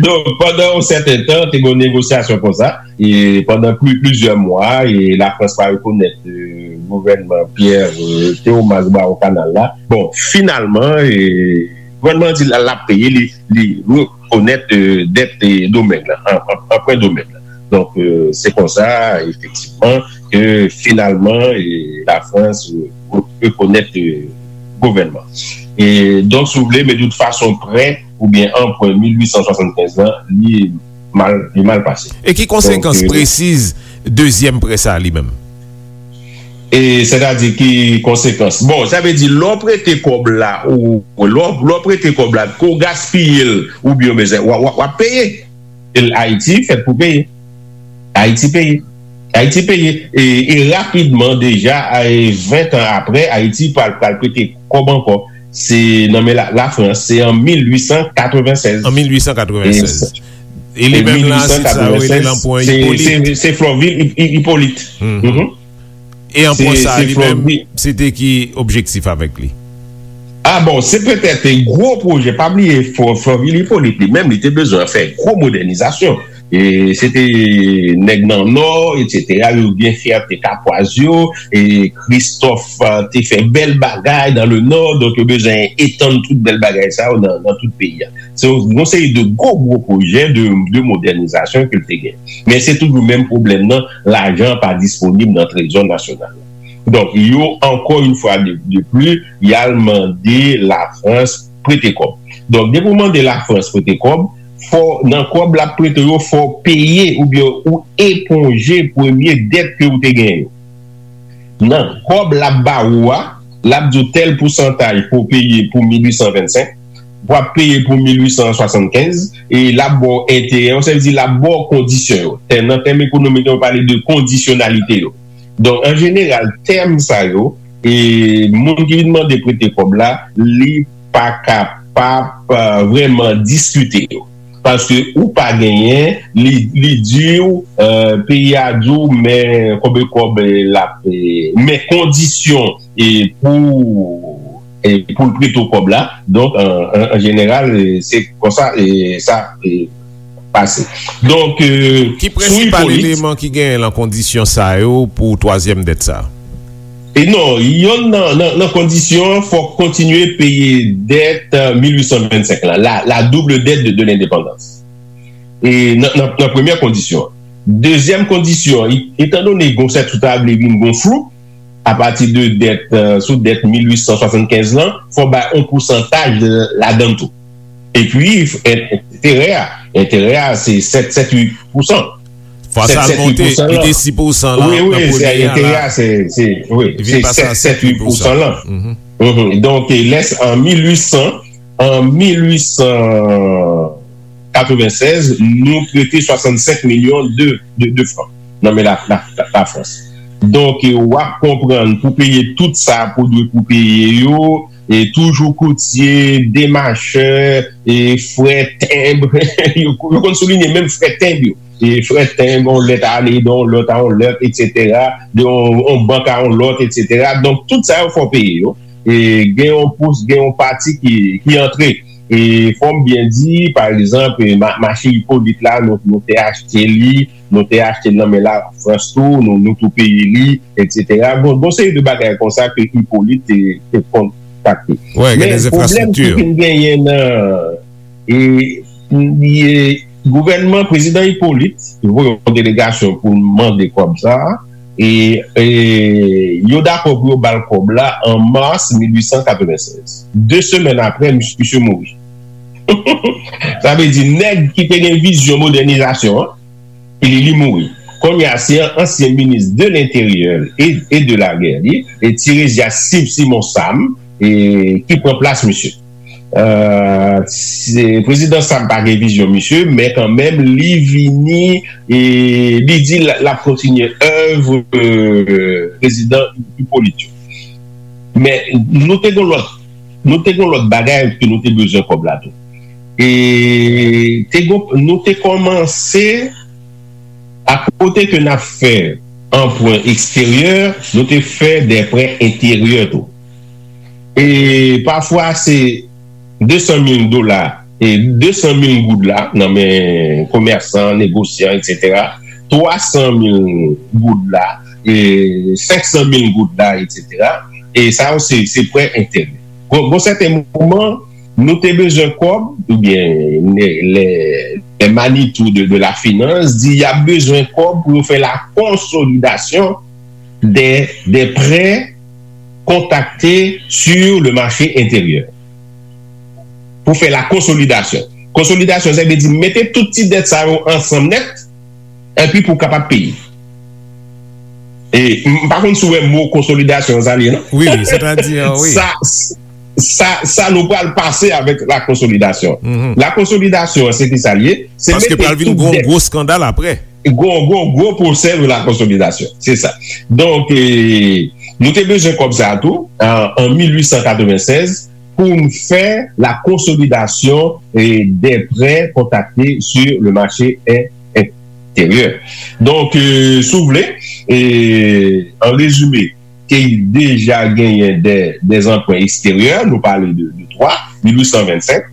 Donk, pandan yon sèten tan, te gen yon negosyasyon konsa, e pandan pli, plizyè mwa, e Lafrans pa rekonèt, e, gouvènman Pierre, e, Théomas Brawon Kanal la. Bon, finalman, e, gouvènman an di l, l ap peye, li, li rekonèt, e, dèt, e, Domeng lan, an, an, anprè Domeng lan. Donk, e, se konsa, efektivman, ke finalman, e, Lafrans, e, re-, rekonèt, e, gouvènman. E, donk, si w vle, men de tout fason, prè oubyen anprè mil uit san swasannkenz lan, li mal, li mal pase. E ki konsekans, donk, e, presiz dezyèm prè sa a li menm? E sètadi ki konsekans? Bon, sa vle di, lè w prete kòb la, ou, lè w, lè w prete kòb la, ke w gaspiye l, oubyen w bezwen, w, w, w ap peye. E Ayiti fèt pou peye. Ayiti peye. Ayiti peye. E, e rapidman, deja, e ven tan apre, Ayiti pral, pral prete kòb ankò. Se nan men la, Lafrans, se an mil uit san katreven sèz. An mil uit san katreven sèz. E, e li menm la, se sa yo rele lanpwen Ipolit. Se, se Florvil Hi-, Hi-, Hipolit. Mhm. E anpwen sa, li menm, se te ki objektif avèk li? A bon, se petèt gwo pwojè, pa bliye, Fò-, Florvil Hipolit li menm, li te bezwen fè gwo modènizasyon. E se te nèg nan Nò, etsetera, yo gen fyète kapwaz yo, e Kristòf, a, te fè bèl bagay dans le Nord, donk yo bezwen etann tout bèl bagay sa yo nan, nan tout peyi a. Se yon, yon seri de gwo, gwo pwojè de, de modènizasyon ke l te gen. Men se toujou menm pwoblèm nan, lajan pa disponib nan trezò nasyonal la. Donk, yo, ankò yon fwa de, de pli, y al mande Lafrans prete kòb. Donk, depi w mande Lafrans prete kòb, fò, nan kòb l ap prete w yo, fò w peye oubyen ou eponje premye dèt ke w te genyen yo. Nan kòb l ap ba ou a, l ap di w tèl pousantaj pou w peye pou mil uit san vennsenk, w ap peye pou mil uit san swasannkenz, e l ap ba w enterè yo, sa vle di l ap ba w kondisyon yo. Tèm, nan tèm ekonomik yo pale de kondisyonalite yo. Donk, an jeneral, tèm sa yo, e moun ki vin mande prete kòb la, li pa kapab, e, vrèman diskite yo. Paske ou pa genyen, li, li di w, e, peyi a di w, men konbyen kòb, e, l ap, e, men kondisyon, e, pou, e, pou l prete w kòb la. Donk, an, an, an jeneral, e, se konsa, e, sa, e, pase. Donk, e, ki prensipal eleman ki genyen nan kondisyon sa yo pou twazyèm dèt sa? E non, yonn nan, nan, nan kondisyon an, fòk kontinye peye dèt, e, mil uit san vennsenk lan, la, la double dette de, de l'indépendance. E nan, nan, nan premyè kondisyon an. Dezyèm kondisyon, e, etandone gon sèt ou ta vle vin gon flou, apati de dèt, e, sou dèt mil uit san swasannkenz lan, fò bay yon pousantaj ladan l tou. Epi, en-, enterè a, enterè a, se sèt, sèt, uit pousan. Fwa sa l monte, li te sis pousan lan, wi, wi, nan premye a la. Enterè a, se, se, wi, se sèt, sèt, uit pousan lan. Mhm. Donk, e lè s-, an mil uit san, an mil uit san katrevensèz, nou prete swasannsenk milyon de, de, de fran nan men la, la, la, Lafrans. Donk, e, w ap konprann pou peye tout sa pou dwe pou peye yo, e toujou koutye, demachè, e frè tenb, yo, yo konn soulinye menm frè tenb yo. E frè tenb, yon lèt ale de yon lòt a yon lòt, etsetera, de yon, yon bank a yon lòt, etsetera. Donk, tout sa yo fò peye yo. E gen yon pous, gen yon pati ki, ki antre. E fò m byen di, pa egzanp, e ma-, mache Ipolit la, nou, nou te achte li, nou te achte l nan men Lafrans tou, nou, nou tou peye li, etsetera. Bon, bon seri de bagay konsa ke Ipolit te, te kontakte. Men pwoblèm ki vin genyen nan, e, e, gouvènman prezidan Ipolit, ki voye yon delegasyon pou l mande kòb sa a, E, e yo dakò pou yo ba l kòb la an mas mil uit san katrevennsèz. De semèn apre, misye mouri. Sa vle di, nèg ki te gen vizyon modènizasyon an, li, li mouri. Kounye a, se an-, ansyen minis de lenteryè e, e de lagè li, e Tiresia Sim-, Simon Sam, e, ki pran plas misye. Euh, se, prezidan Sam pa gen vizyon misye, men kanmenm, li vini, e, li di l, l ap kontinye èv, euh, prezidan Ipolit yo. Men nou te gen lòt, nou te gen lòt bagay ke nou te bezwen kòb la tou. E te gen, nou te kòmanse, akote ke n ap fè anprè eksteryè, nou te fè de prè enteryè tou. E pafwa se de san mil dola, e de san mil goud la nan men komèsan, negosyan, etsetera. Twa san mil goud la, e senk san mil goud la, etsetera. E sa yo se, se prè enteryè. Gon, gon sèten moman, nou te bezwen kòb, oubyen lè, lè, lè Manitou de, de la finans di y ap bezwen kòb pou yo fè la konsolidasyon de, de prè kontrakte sur le marché intérieur. Pou fè la konsolidasyon. Konsolidasyon, sa vle di mete tout ti dèt sa yo ansanm nèt, epi pou w kapab peye. E m pa konn si w wè mo konsolidasyon sa l ye, non? Wi, wi, sètadi, wi. Sa, sa, sa nou pral pase avèk la konsolidasyon. Mhm. La konsolidasyon, se ki sa l ye? Se Paske mete pral vin tout gwo, dèt. Gwo skandal apre. Gwo, gwo, gwo pwosè de la konsolidasyon. Se sa. Donk, e, nou te bezwen kòb sa a tou, an, an mil uit san katrevennsèz, pou n fè la konsolidasyon, e, des prêts contractés sur le marché in-, intérieur. Donk, e, si w vle, e, an rezime, te deja genyen de, de anprè eksteryè, nou pale de, de twa, mil uit san vennsenk,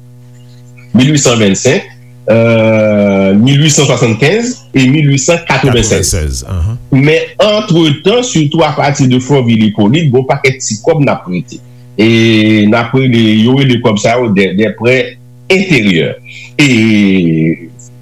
mil uit san vennsenk, euh, mil uit san swasannkenz e mil uit san katrevennsèz. Katrevennsèz, ahan. Men antretan, sitou apati de Fòvil Ipolit, gon pakèt ti kòb n ap prete. E n ap rele, yo rele kòb sa yo de, de prè enteryè. E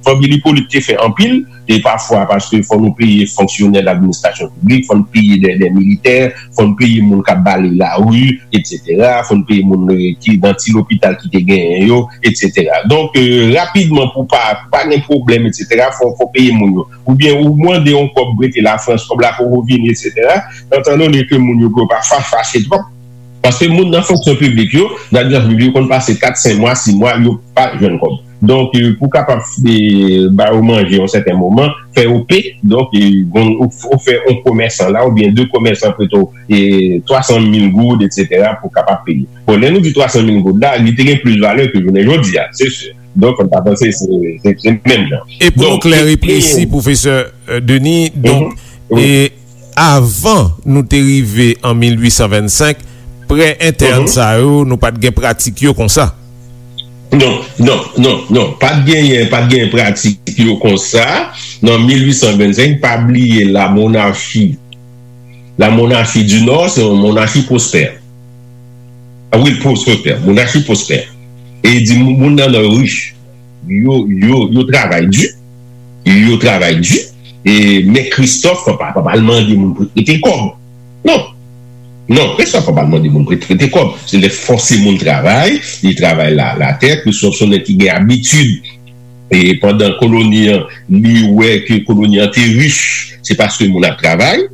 Fòvil Ipolit te fè anpil, e pafwa paske fò nou peye fonksyonè ladministrasyon piblik, fò n peye de, de militè, fò n peye moun k ap bale lari, etsetera, fò n peye moun, e, ki nan ti lopital ki te genyen yo, etsetera. Donk, e, rapidman, pou pa, pou pa gen pwoblèm, etsetera, fò, fò peye moun yo. Oubyen ou mande yon kòb prete Lafrans, kòb la poko vini, etsetera. Etandone ke moun yo pa fa-, fache twòp, paske moun nan fonksyon piblik yo, nan administrasyon piblik yo konn pase kat, senk mwa, sis mwa, yo pa jwenn kòb. Donk, e, pou kapab, e, ba yo manje yon sèten moman, fè yo pe, donk, e, bon, ou, ou fè yon komèsan la, oubyen de komèsan prete w, e, twa san mil goud, etsetera, pou kapab peye. Bon, lè nou di twa san mil goud la, li te gen plis valè ke jounen jodi a, se si. Donk, fò n pa panse se, se, se menm jan. E pou nou klè e presi, pwofesè, e, Denis, donk, e, avan nou te rive an mil uit san vennsenk, prè entèn sa yo, nou pa t gen pratik yo konsa. Non, non, non, non. Pa t genyen, pa t genyen pratik yo konsa. Nan mil uit san vennsenk, pa bliye la monachi, la monachi di Nò, se yon monachi pwospè. A wi, pwospè, monachi pwospè. E di moun, moun nan Nò yo rich. Yo, yo, yo travay di. Yo travay di. E, men Kristòf pa, pa, pa al mande moun pou prete kòb. Non. Non, Kristòf pa al mande moun pou prete kòb. Se lè fòse moun travay, li travay la, latè. Kristòf se yon nèg ki gen abitid. E pandan koloni an, li wè ke koloni an te rich, se paske moun ap travay.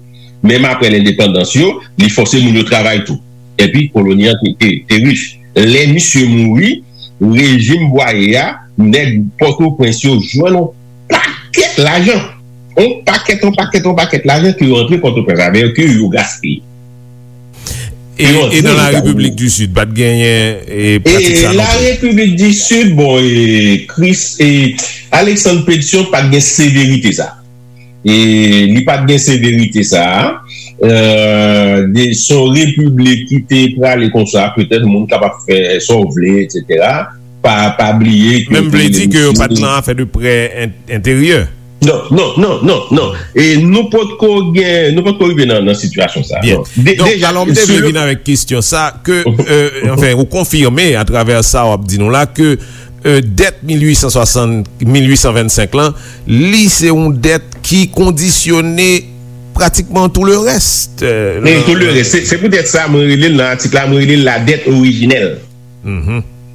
Menm apre lendepandans yo, li fòse moun yo travay tou. Epi koloni an te, te, te rich. Lè misye mouri, rejim Bwaye a, nèg Pòtoprens yo jwenn yon pakèt lajan. Yon pakèt, yon pakèt, yon pakèt lajan ke yo antre Pòtoprens avè yo, ke yo gaspiye. E, e nan la Repiblik di Sid, pa t genyen, e, pratik sa non plis? E la Repiblik di Sid, bon, e, Chris, e, Alexandre Pétion pa t gen severite sa. E li pa t gen severite sa a. Euh, de, se yon repiblik ki te prale konsa, petèt moun kapab fè sa w vle, etsetera. Pa, pa bliye ke... Men m vle di ke yo pa t nan afè de prè en-, enteryè. Non, non, non, non, non. E nou potko gen, nou potko rive nan, nan sitiyasyon sa a. Byen. Non. De-, donk, deja, alò, m te vle vin avèk kesyon sa, ke, euh, anfen, ou konfime atravè sa w ap di nou la, ke, euh, dèt mil uit san swasant, mil uit san vennsenk lan, li se yon dèt ki kondisyone pratikman tout le reste. Men tout le reste, se poutèt sa mwen rele l nan atik la, mwen rele l la dèt orijinèl.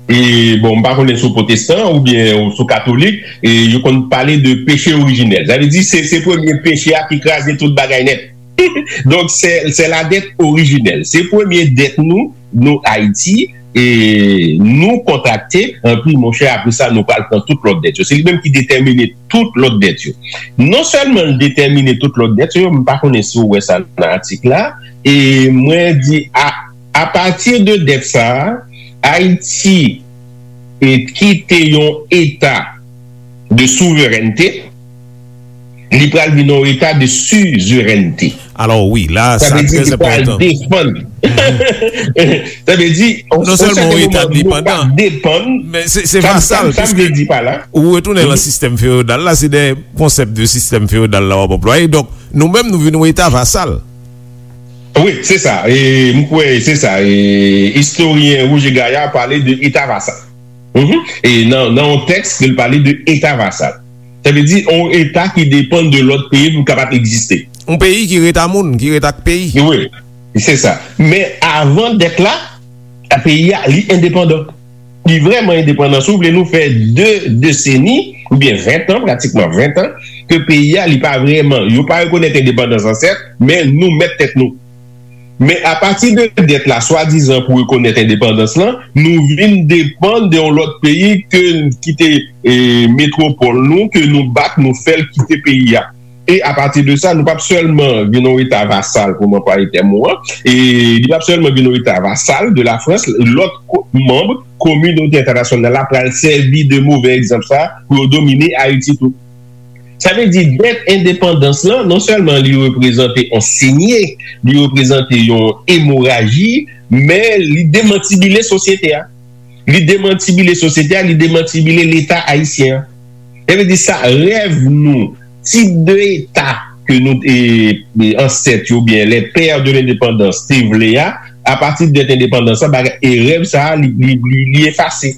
E bon, m pa konnen si w pwotestan oubyen si w katolik, e yo konn pale de peche orijinèl. Sa vle di se se premye peche a ki kraze tout bagay nèt. Donk se se la dèt orijinèl. Se premye dèt nou, nou Ayiti, e nou kontrakte, anpi monchè, apre sa nou pral pran tout lòt dèt yo. Se li menm ki detèmine tout lòt dèt yo. Non sèlman l detèmine tout lòt dèt yo, m pa konnen si w wè sa nan atik la, e mwen di a, apati de dèt sa a, Ayiti e kite yon eta de souverènte, li pral vin yon eta de sizerènte. Alò wi, la sa trè enpòtan. Defann. Sa vle di, non sèlman yon eta depandan, depann. Men se se vasal, piske ou retounen nan sistèm feyodal la, se de konsèp de sistèm feyodal la w ap anplwaye. Donk nou menm nou vin yon eta vasal. Wi, se sa. E m kwè se sa. E istoryen Roger Gaillard pale de eta vasal. E nan nan yon tèks ke l pale de eta vasal. Sa vle di yon eta ki depann de lòt peyi pou l kapab egziste. Yon peyi ki ret a moun, ki ret ak peyi. Wi, se sa. Men avan dèt la, peyi a li endepandan. Li vrèman endepandan. Si w vle nou fè de deseni oubyen ven tan, pratikman ven tan, ke peyi a li pa vrèman, yo pa rekonèt endepandans ansèt, men nou mèt tèt nou. Men apati de dèt la swadizan pou rekonèt endepandans lan, nou vin depann de yon lòt peyi ke ki te metwopòl nou, ke nou bat, nou fè l kite peyi a. E apati de sa, nou p ap sèlman vin yon eta vasal, pou m anplwaye tèm ou an, e li p ap sèlman vin yon eta vasal de Lafrans, lòt manm kominote entènasyonal la pral sèvi de move egzanp sa pou yo domine Ayiti tou. Sa vle di dèt endepandans lan, non sèlman li reprezante yon senye, li reprezante yon emoraji, men li demantibile sosyete a. Li demantibile sosyete a, li demantibile Leta ayisyen an. Sa vle di sa, rèv nou, tip de eta ke nou te, ansèt yo oubyen les pères de l'indépendance te vle a, apati de dèt endepandans lan, bagay, e rèv sa a, li, li, li, li efase.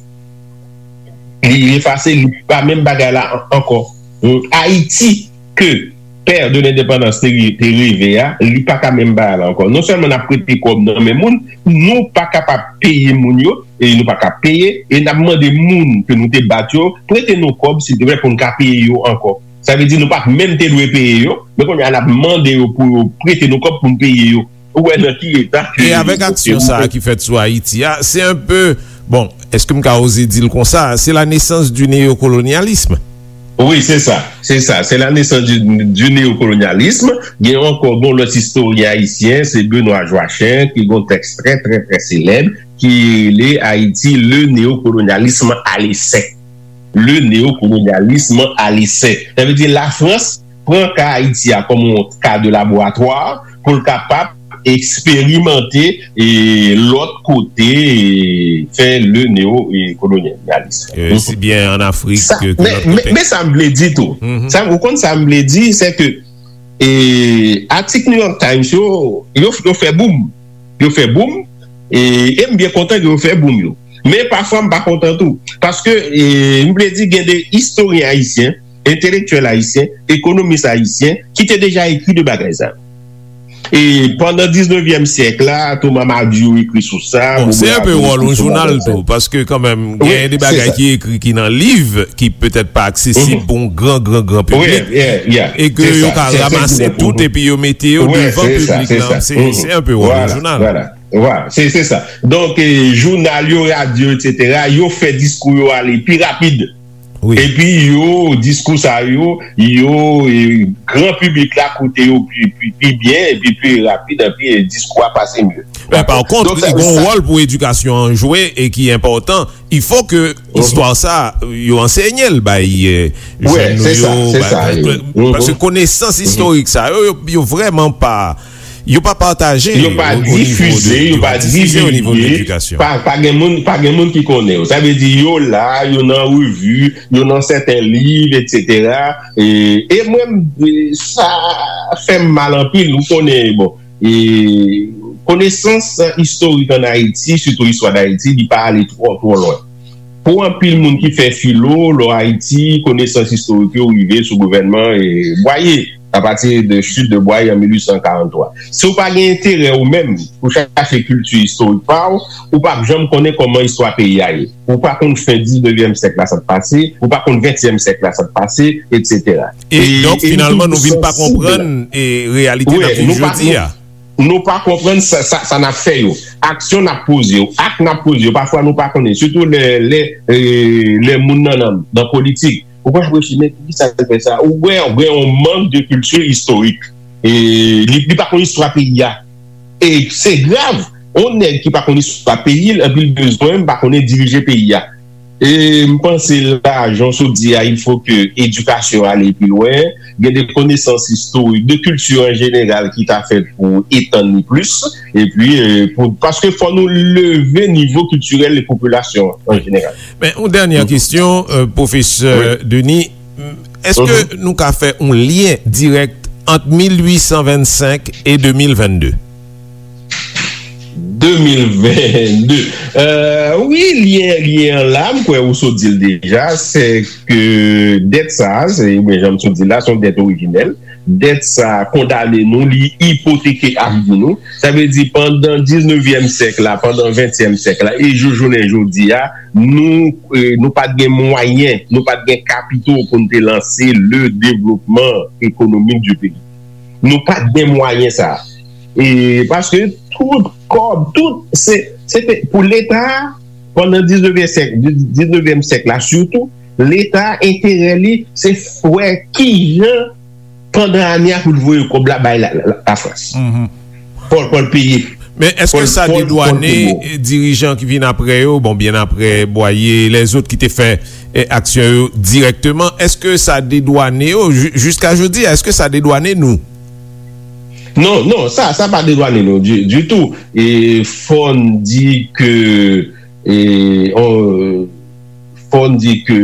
Li, li efase, li pa menm bagay la ankò. Ayiti ke pè de lendepandans te reve a, li pa ka menm bagay la ankò. Non sèlman n ap prete kòb nan men moun, nou pa kapab peye moun yo, e nou pa ka peye, e n ap mande moun ke nou te bat yo, prete nou kòb, silteplè, pou n ka peye yo ankò. Sa vle di nou pa t menm te dwe peye yo, men kounye a n ap mande yo pou yo prete nou kòb pou n peye yo. Ou wè nan ki eta ke. E avèk aksyon sa a ki fèt sou Ayiti a, se un peu, bon, èske m ka oze di l konsa, c'est la naissance du néocolonialisme. Wi, se sa, se sa, c'est la naissance du, du néocolonialisme. Gen ankò, bon, lòt istoryen ayisyen, se Benoît Joachim, ki gen yon tèks trè, trè, trè selèb, ki rele Ayiti, le néocolonialisme à l'essai. Le néocolonialisme à l'essai. Sa vle di Lafrans pran ka Ayiti a kòm yon ka de laboratwa pou l kapab eksperimante e lòt kote e fè le neo e kolonyalism. Isi byen an Afrik ke lòt kote. Men sa m vle di tou, sa, ou konn sa m vle di, se ke e, atik New York Times yo, yo, yo fè boum. Yo fè boum. E, e m byen kontan ke yo fè boum yo. Men pafwa m pa kontan tou. Paske, e, m vle di gen de istoryen ayisyen, entelektyèl ayisyen, ekonomis ayisyen, ki te deja ekri de bagay sa. E pandan diznevyèm syèk la, Thomas Madiou ekri sou sa. Bon, se enpe wòl yon jounal tou, paske kanmenm, gen de bagay ki ekri ki nan liv, ki petèt pa aksesib pou yon gran, gran, gran piblik, e ke yo ka ranmase tout epi yo mete yo devan piblik lan. Se, se enpe wòl yon jounal. Vwala, se, se sa. Donk, e, jounal yo, radyo, etsetera, yo fè diskou yo ale pi rapid. Epi yo, diskou sa yo, yo, e, gran piblik la koute yo pi, pi, pi byen, epi pi rapid, epi, e, diskou a pase mye. Men pa kont, li gen yon wòl pou edikasyon an jwe e ki enpòtan. Il faut que istwa sa, yo ansenye l bay, e, jèn nou yo, bay, paske konesans istorik sa yo, yo, yo vrèman pa, yo pa pataje, yo pa difize, yo pa divize, pa, pa gen moun, pa gen moun ki konnen yo. Sa vle di yo la, yo nan revi, yo nan sèten liv, etsetera. E, e mwen, e, sa fè m mal anpil, ou konnen, bon, e, konesans istorik ann Ayiti, sitou istwa Dayiti, li pa ale twò, twò lwen. Pou anpil moun ki fè filo, lò Ayiti, konesans istorik yo rive sou gouvènman, e, Bwaye. à partir de chute de Bwaye an mil uit san karant twa. Si w pa gen enterè ou menm pou chache kilti istorik pa w, ou p ap janm konnen kòman istwa peyi a ye. Ou pa konn fen diznevyèm syèk la sa k pase, ou pa konn ventyèm syèk la sa k pase, etsetera. E donk, finalman, nou vin pa konprann e reyalite n ap viv jodi a. Nou pa konprann sa, sa, sa n ap fè yo. Aksyon n ap poze yo, ak n ap poze yo, pafwa nou pa konnen. Sitou lè, lè, e, lè moun nan, nan, nan politik. Ou konn ap reflechi, men poukisa l fè sa? Ou wè, ou gen yon mank de kilti istorik. E li, li pa konn istwa peyi a. E se grav. Yon nèg ki pa konn istwa peyi l, epi l bezwen, m pa konnen, dirije peyi a. E m panse la, jan w sot di a, il faut que éducation aller plus loin, gen de konesans istorik, de kilti an jeneral ki ta fèt pou etann li plis, epi, e, pou, paske fò nou leve nivo kiltirèl de popilasyon an jeneral. Men, yon dènyè kesyon, e, pwofesè Denis, èske nou ka fè yon lyen dirèk ant mil uit san vennsenk e de mil vennde? De mil vennde. E, wi, lyen, lyen an la, m kwè ou sot di l deja, se ke dèt sa a, se, oubyen jan m sot di l la, se yon dèt orijinèl. Dèt sa a kondane nou, li ipoteke avni nou. Sa vle di, pandan diznevyèm syèk la, pandan ventyèm syèk la, e jou jounen jodi a, nou, e, nou pa t gen mwayen, nou pa t gen kapito pou n te lanse le devlopman ekonomik di peyi. Nou pa t gen mwayen sa a. E paske tout kòb, tout, se, se te pou Leta, pandan diznevyèm syèk, diznevyèm syèk la sitou, Leta, enterè li, se wè kijan, pandan ane a, pou l voye kòb la bay la, la, la, Lafrans. Pou, pou l peye. Men èske sa dedwane dirijan ki vin apre yo, bon, byen apre Bwaye, lèzòt ki te fè, e, aksyon yo dirèkteman, èske sa dedwane yo, ji-, jiska jodi a, èske sa dedwane nou? Non, non, sa, sa pa dedwane nou di, ditou. E fò n di ke, e, on, fò n di ke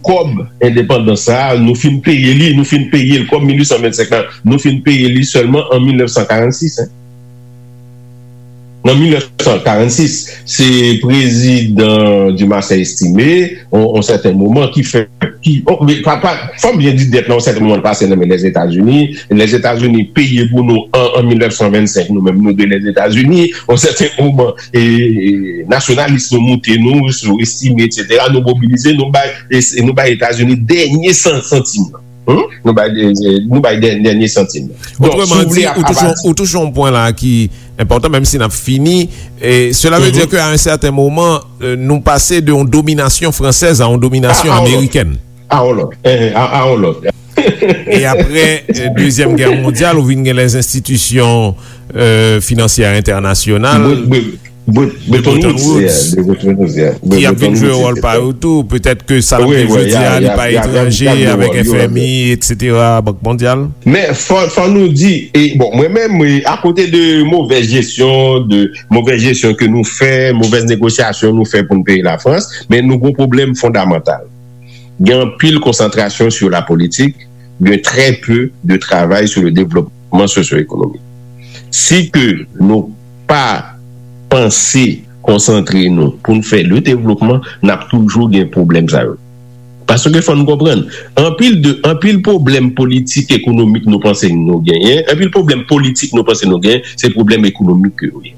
kòb endepandans sa a, nou fin peye li, nou fin peye l, kòb mil uit san vennsenk la, nou fin peye li sèlman an mil nèf san karannsis, en. Nan mil nèf san karannsis, se prezidan Dumarsais Estimé, on, on sèten moman, ki fè, ki, on, men, pa, pa, fò m byen di dèt la, on sèten moman, l pase nan men Lèzetazini. Lèzetazini peye pou nou an, an mil nèf san vennsenk, nou menm, nou de Lèzetazini. On sèten moman, e, e, nasyonalis nou moute nou, sou Estimé, etsetera. Nou mobilize, nou bay, e, nou bay Etazini dènye san-, santim nan. Hmm? Nou bay, e, nou bay dè-, dènye santim nan. Donk, si w vle, a, a pati. Otreman di, ou touche yon, ou touche yon pwen la ki enpòtan, menm si n ap fini. E cela veut dire que à un certain moment, euh, nou pase de yon dominasyon fransèz a yon dominasyon amerikèn. A, a yon lòt. A, a yon lòt. E apre, euh, Dezyèm Gè Mondyal, ou vin gen lèzenstitisyon, euh, finansyè entènasyonal. Bretton Woods, yeah, de Bretton Woods, yeah. Ki ap vin jwe wòl pa yo tou. Petèt ke sa n ap viv jodi a, li pa etranje avèk F M I, etsetera, Bank Mondyal. Men fò, fò nou di, e, bon, mwen menm, e, akote de movèz jesyon, de movèz jesyon ke nou fè, movèz negosyasyon nou fè pou n peye Lafrans, men nou gon pwoblèm fondamantal. Gen anpil konsantrasyon sou la politik, gen trè pe de travay sou le devlopman sosyo-ekonomik. Si ke nou pa panse konsantre nou pou n fè le devlopman, n ap toujou gen pwoblèm sa yo. Paske fò n konprann, anpil de, anpil pwoblèm politik ekonomik nou panse nou genyen, anpil pwoblèm politik nou panse nou genyen, se pwoblèm ekonomik ke yo ye.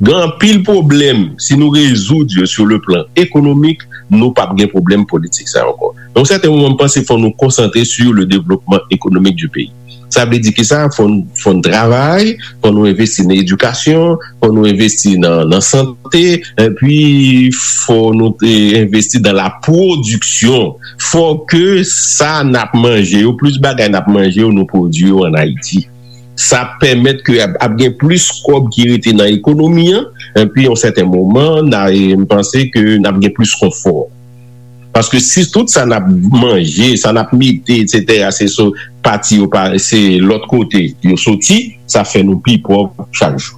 Gen anpil pwoblèm, si nou rezoud yo sur le plan économique, nou p ap gen pwoblèm politik sa ankò. Yon sèten moman, m panse fò nou konsantre sur le développement économique du pays. Sa vle di kisa? Fò n, fò n travay, fò nou envesti nan edikasyon, fò nou envesti nan, nan sante, epi fò nou te envesti dans la production. Fò ke sa n ap manje yo, plis bagay n ap manje yo, nou pwodui yo ann Ayiti. Sa ap pèmèt ke ap, ap gen plis kòb ki rete nan ekonomi an, epi yon sèten moman, n a, e, m panse ke n ap gen plis konfò. Paske si tout sa n ap manje, sa n ap mete, etsetera, se sou pati yo pa, se lòt kote yo soti, sa fè nou pi pòv chak jou.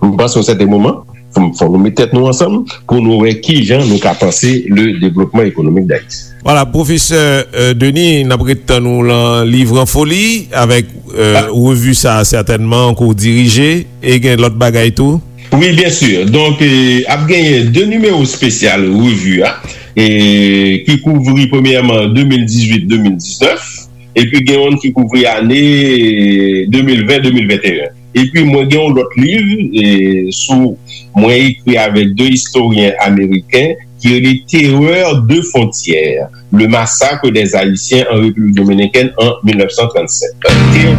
M panse yon sèten moman, fò, fò nou met tèt nou ansanm pou nou wè kijan nou ka panse le développement économique d'Haïti. Vwala, pwofesè, euh, Denis, n ap ret tann ou lan Liv an Foli avèk, euh, revi sa a sètènman ke w dirije, e gen lòt bagay tou? Wi, byen si. Donk, euh, ap genyen de nimewo espesyal revi a, e ki kouvri premyèman de mil dizuit, de mil diznèf. epi gen youn ki kouvri ane de mil ven, de mil venteyen. Epi mwen gen yon lòt liv e, sou mwen ekri avèk de istoryen ameriken ki rele Terreur de frontières, le massacre des Haïtiens en République dominicaine en mil nèf san trannsèt.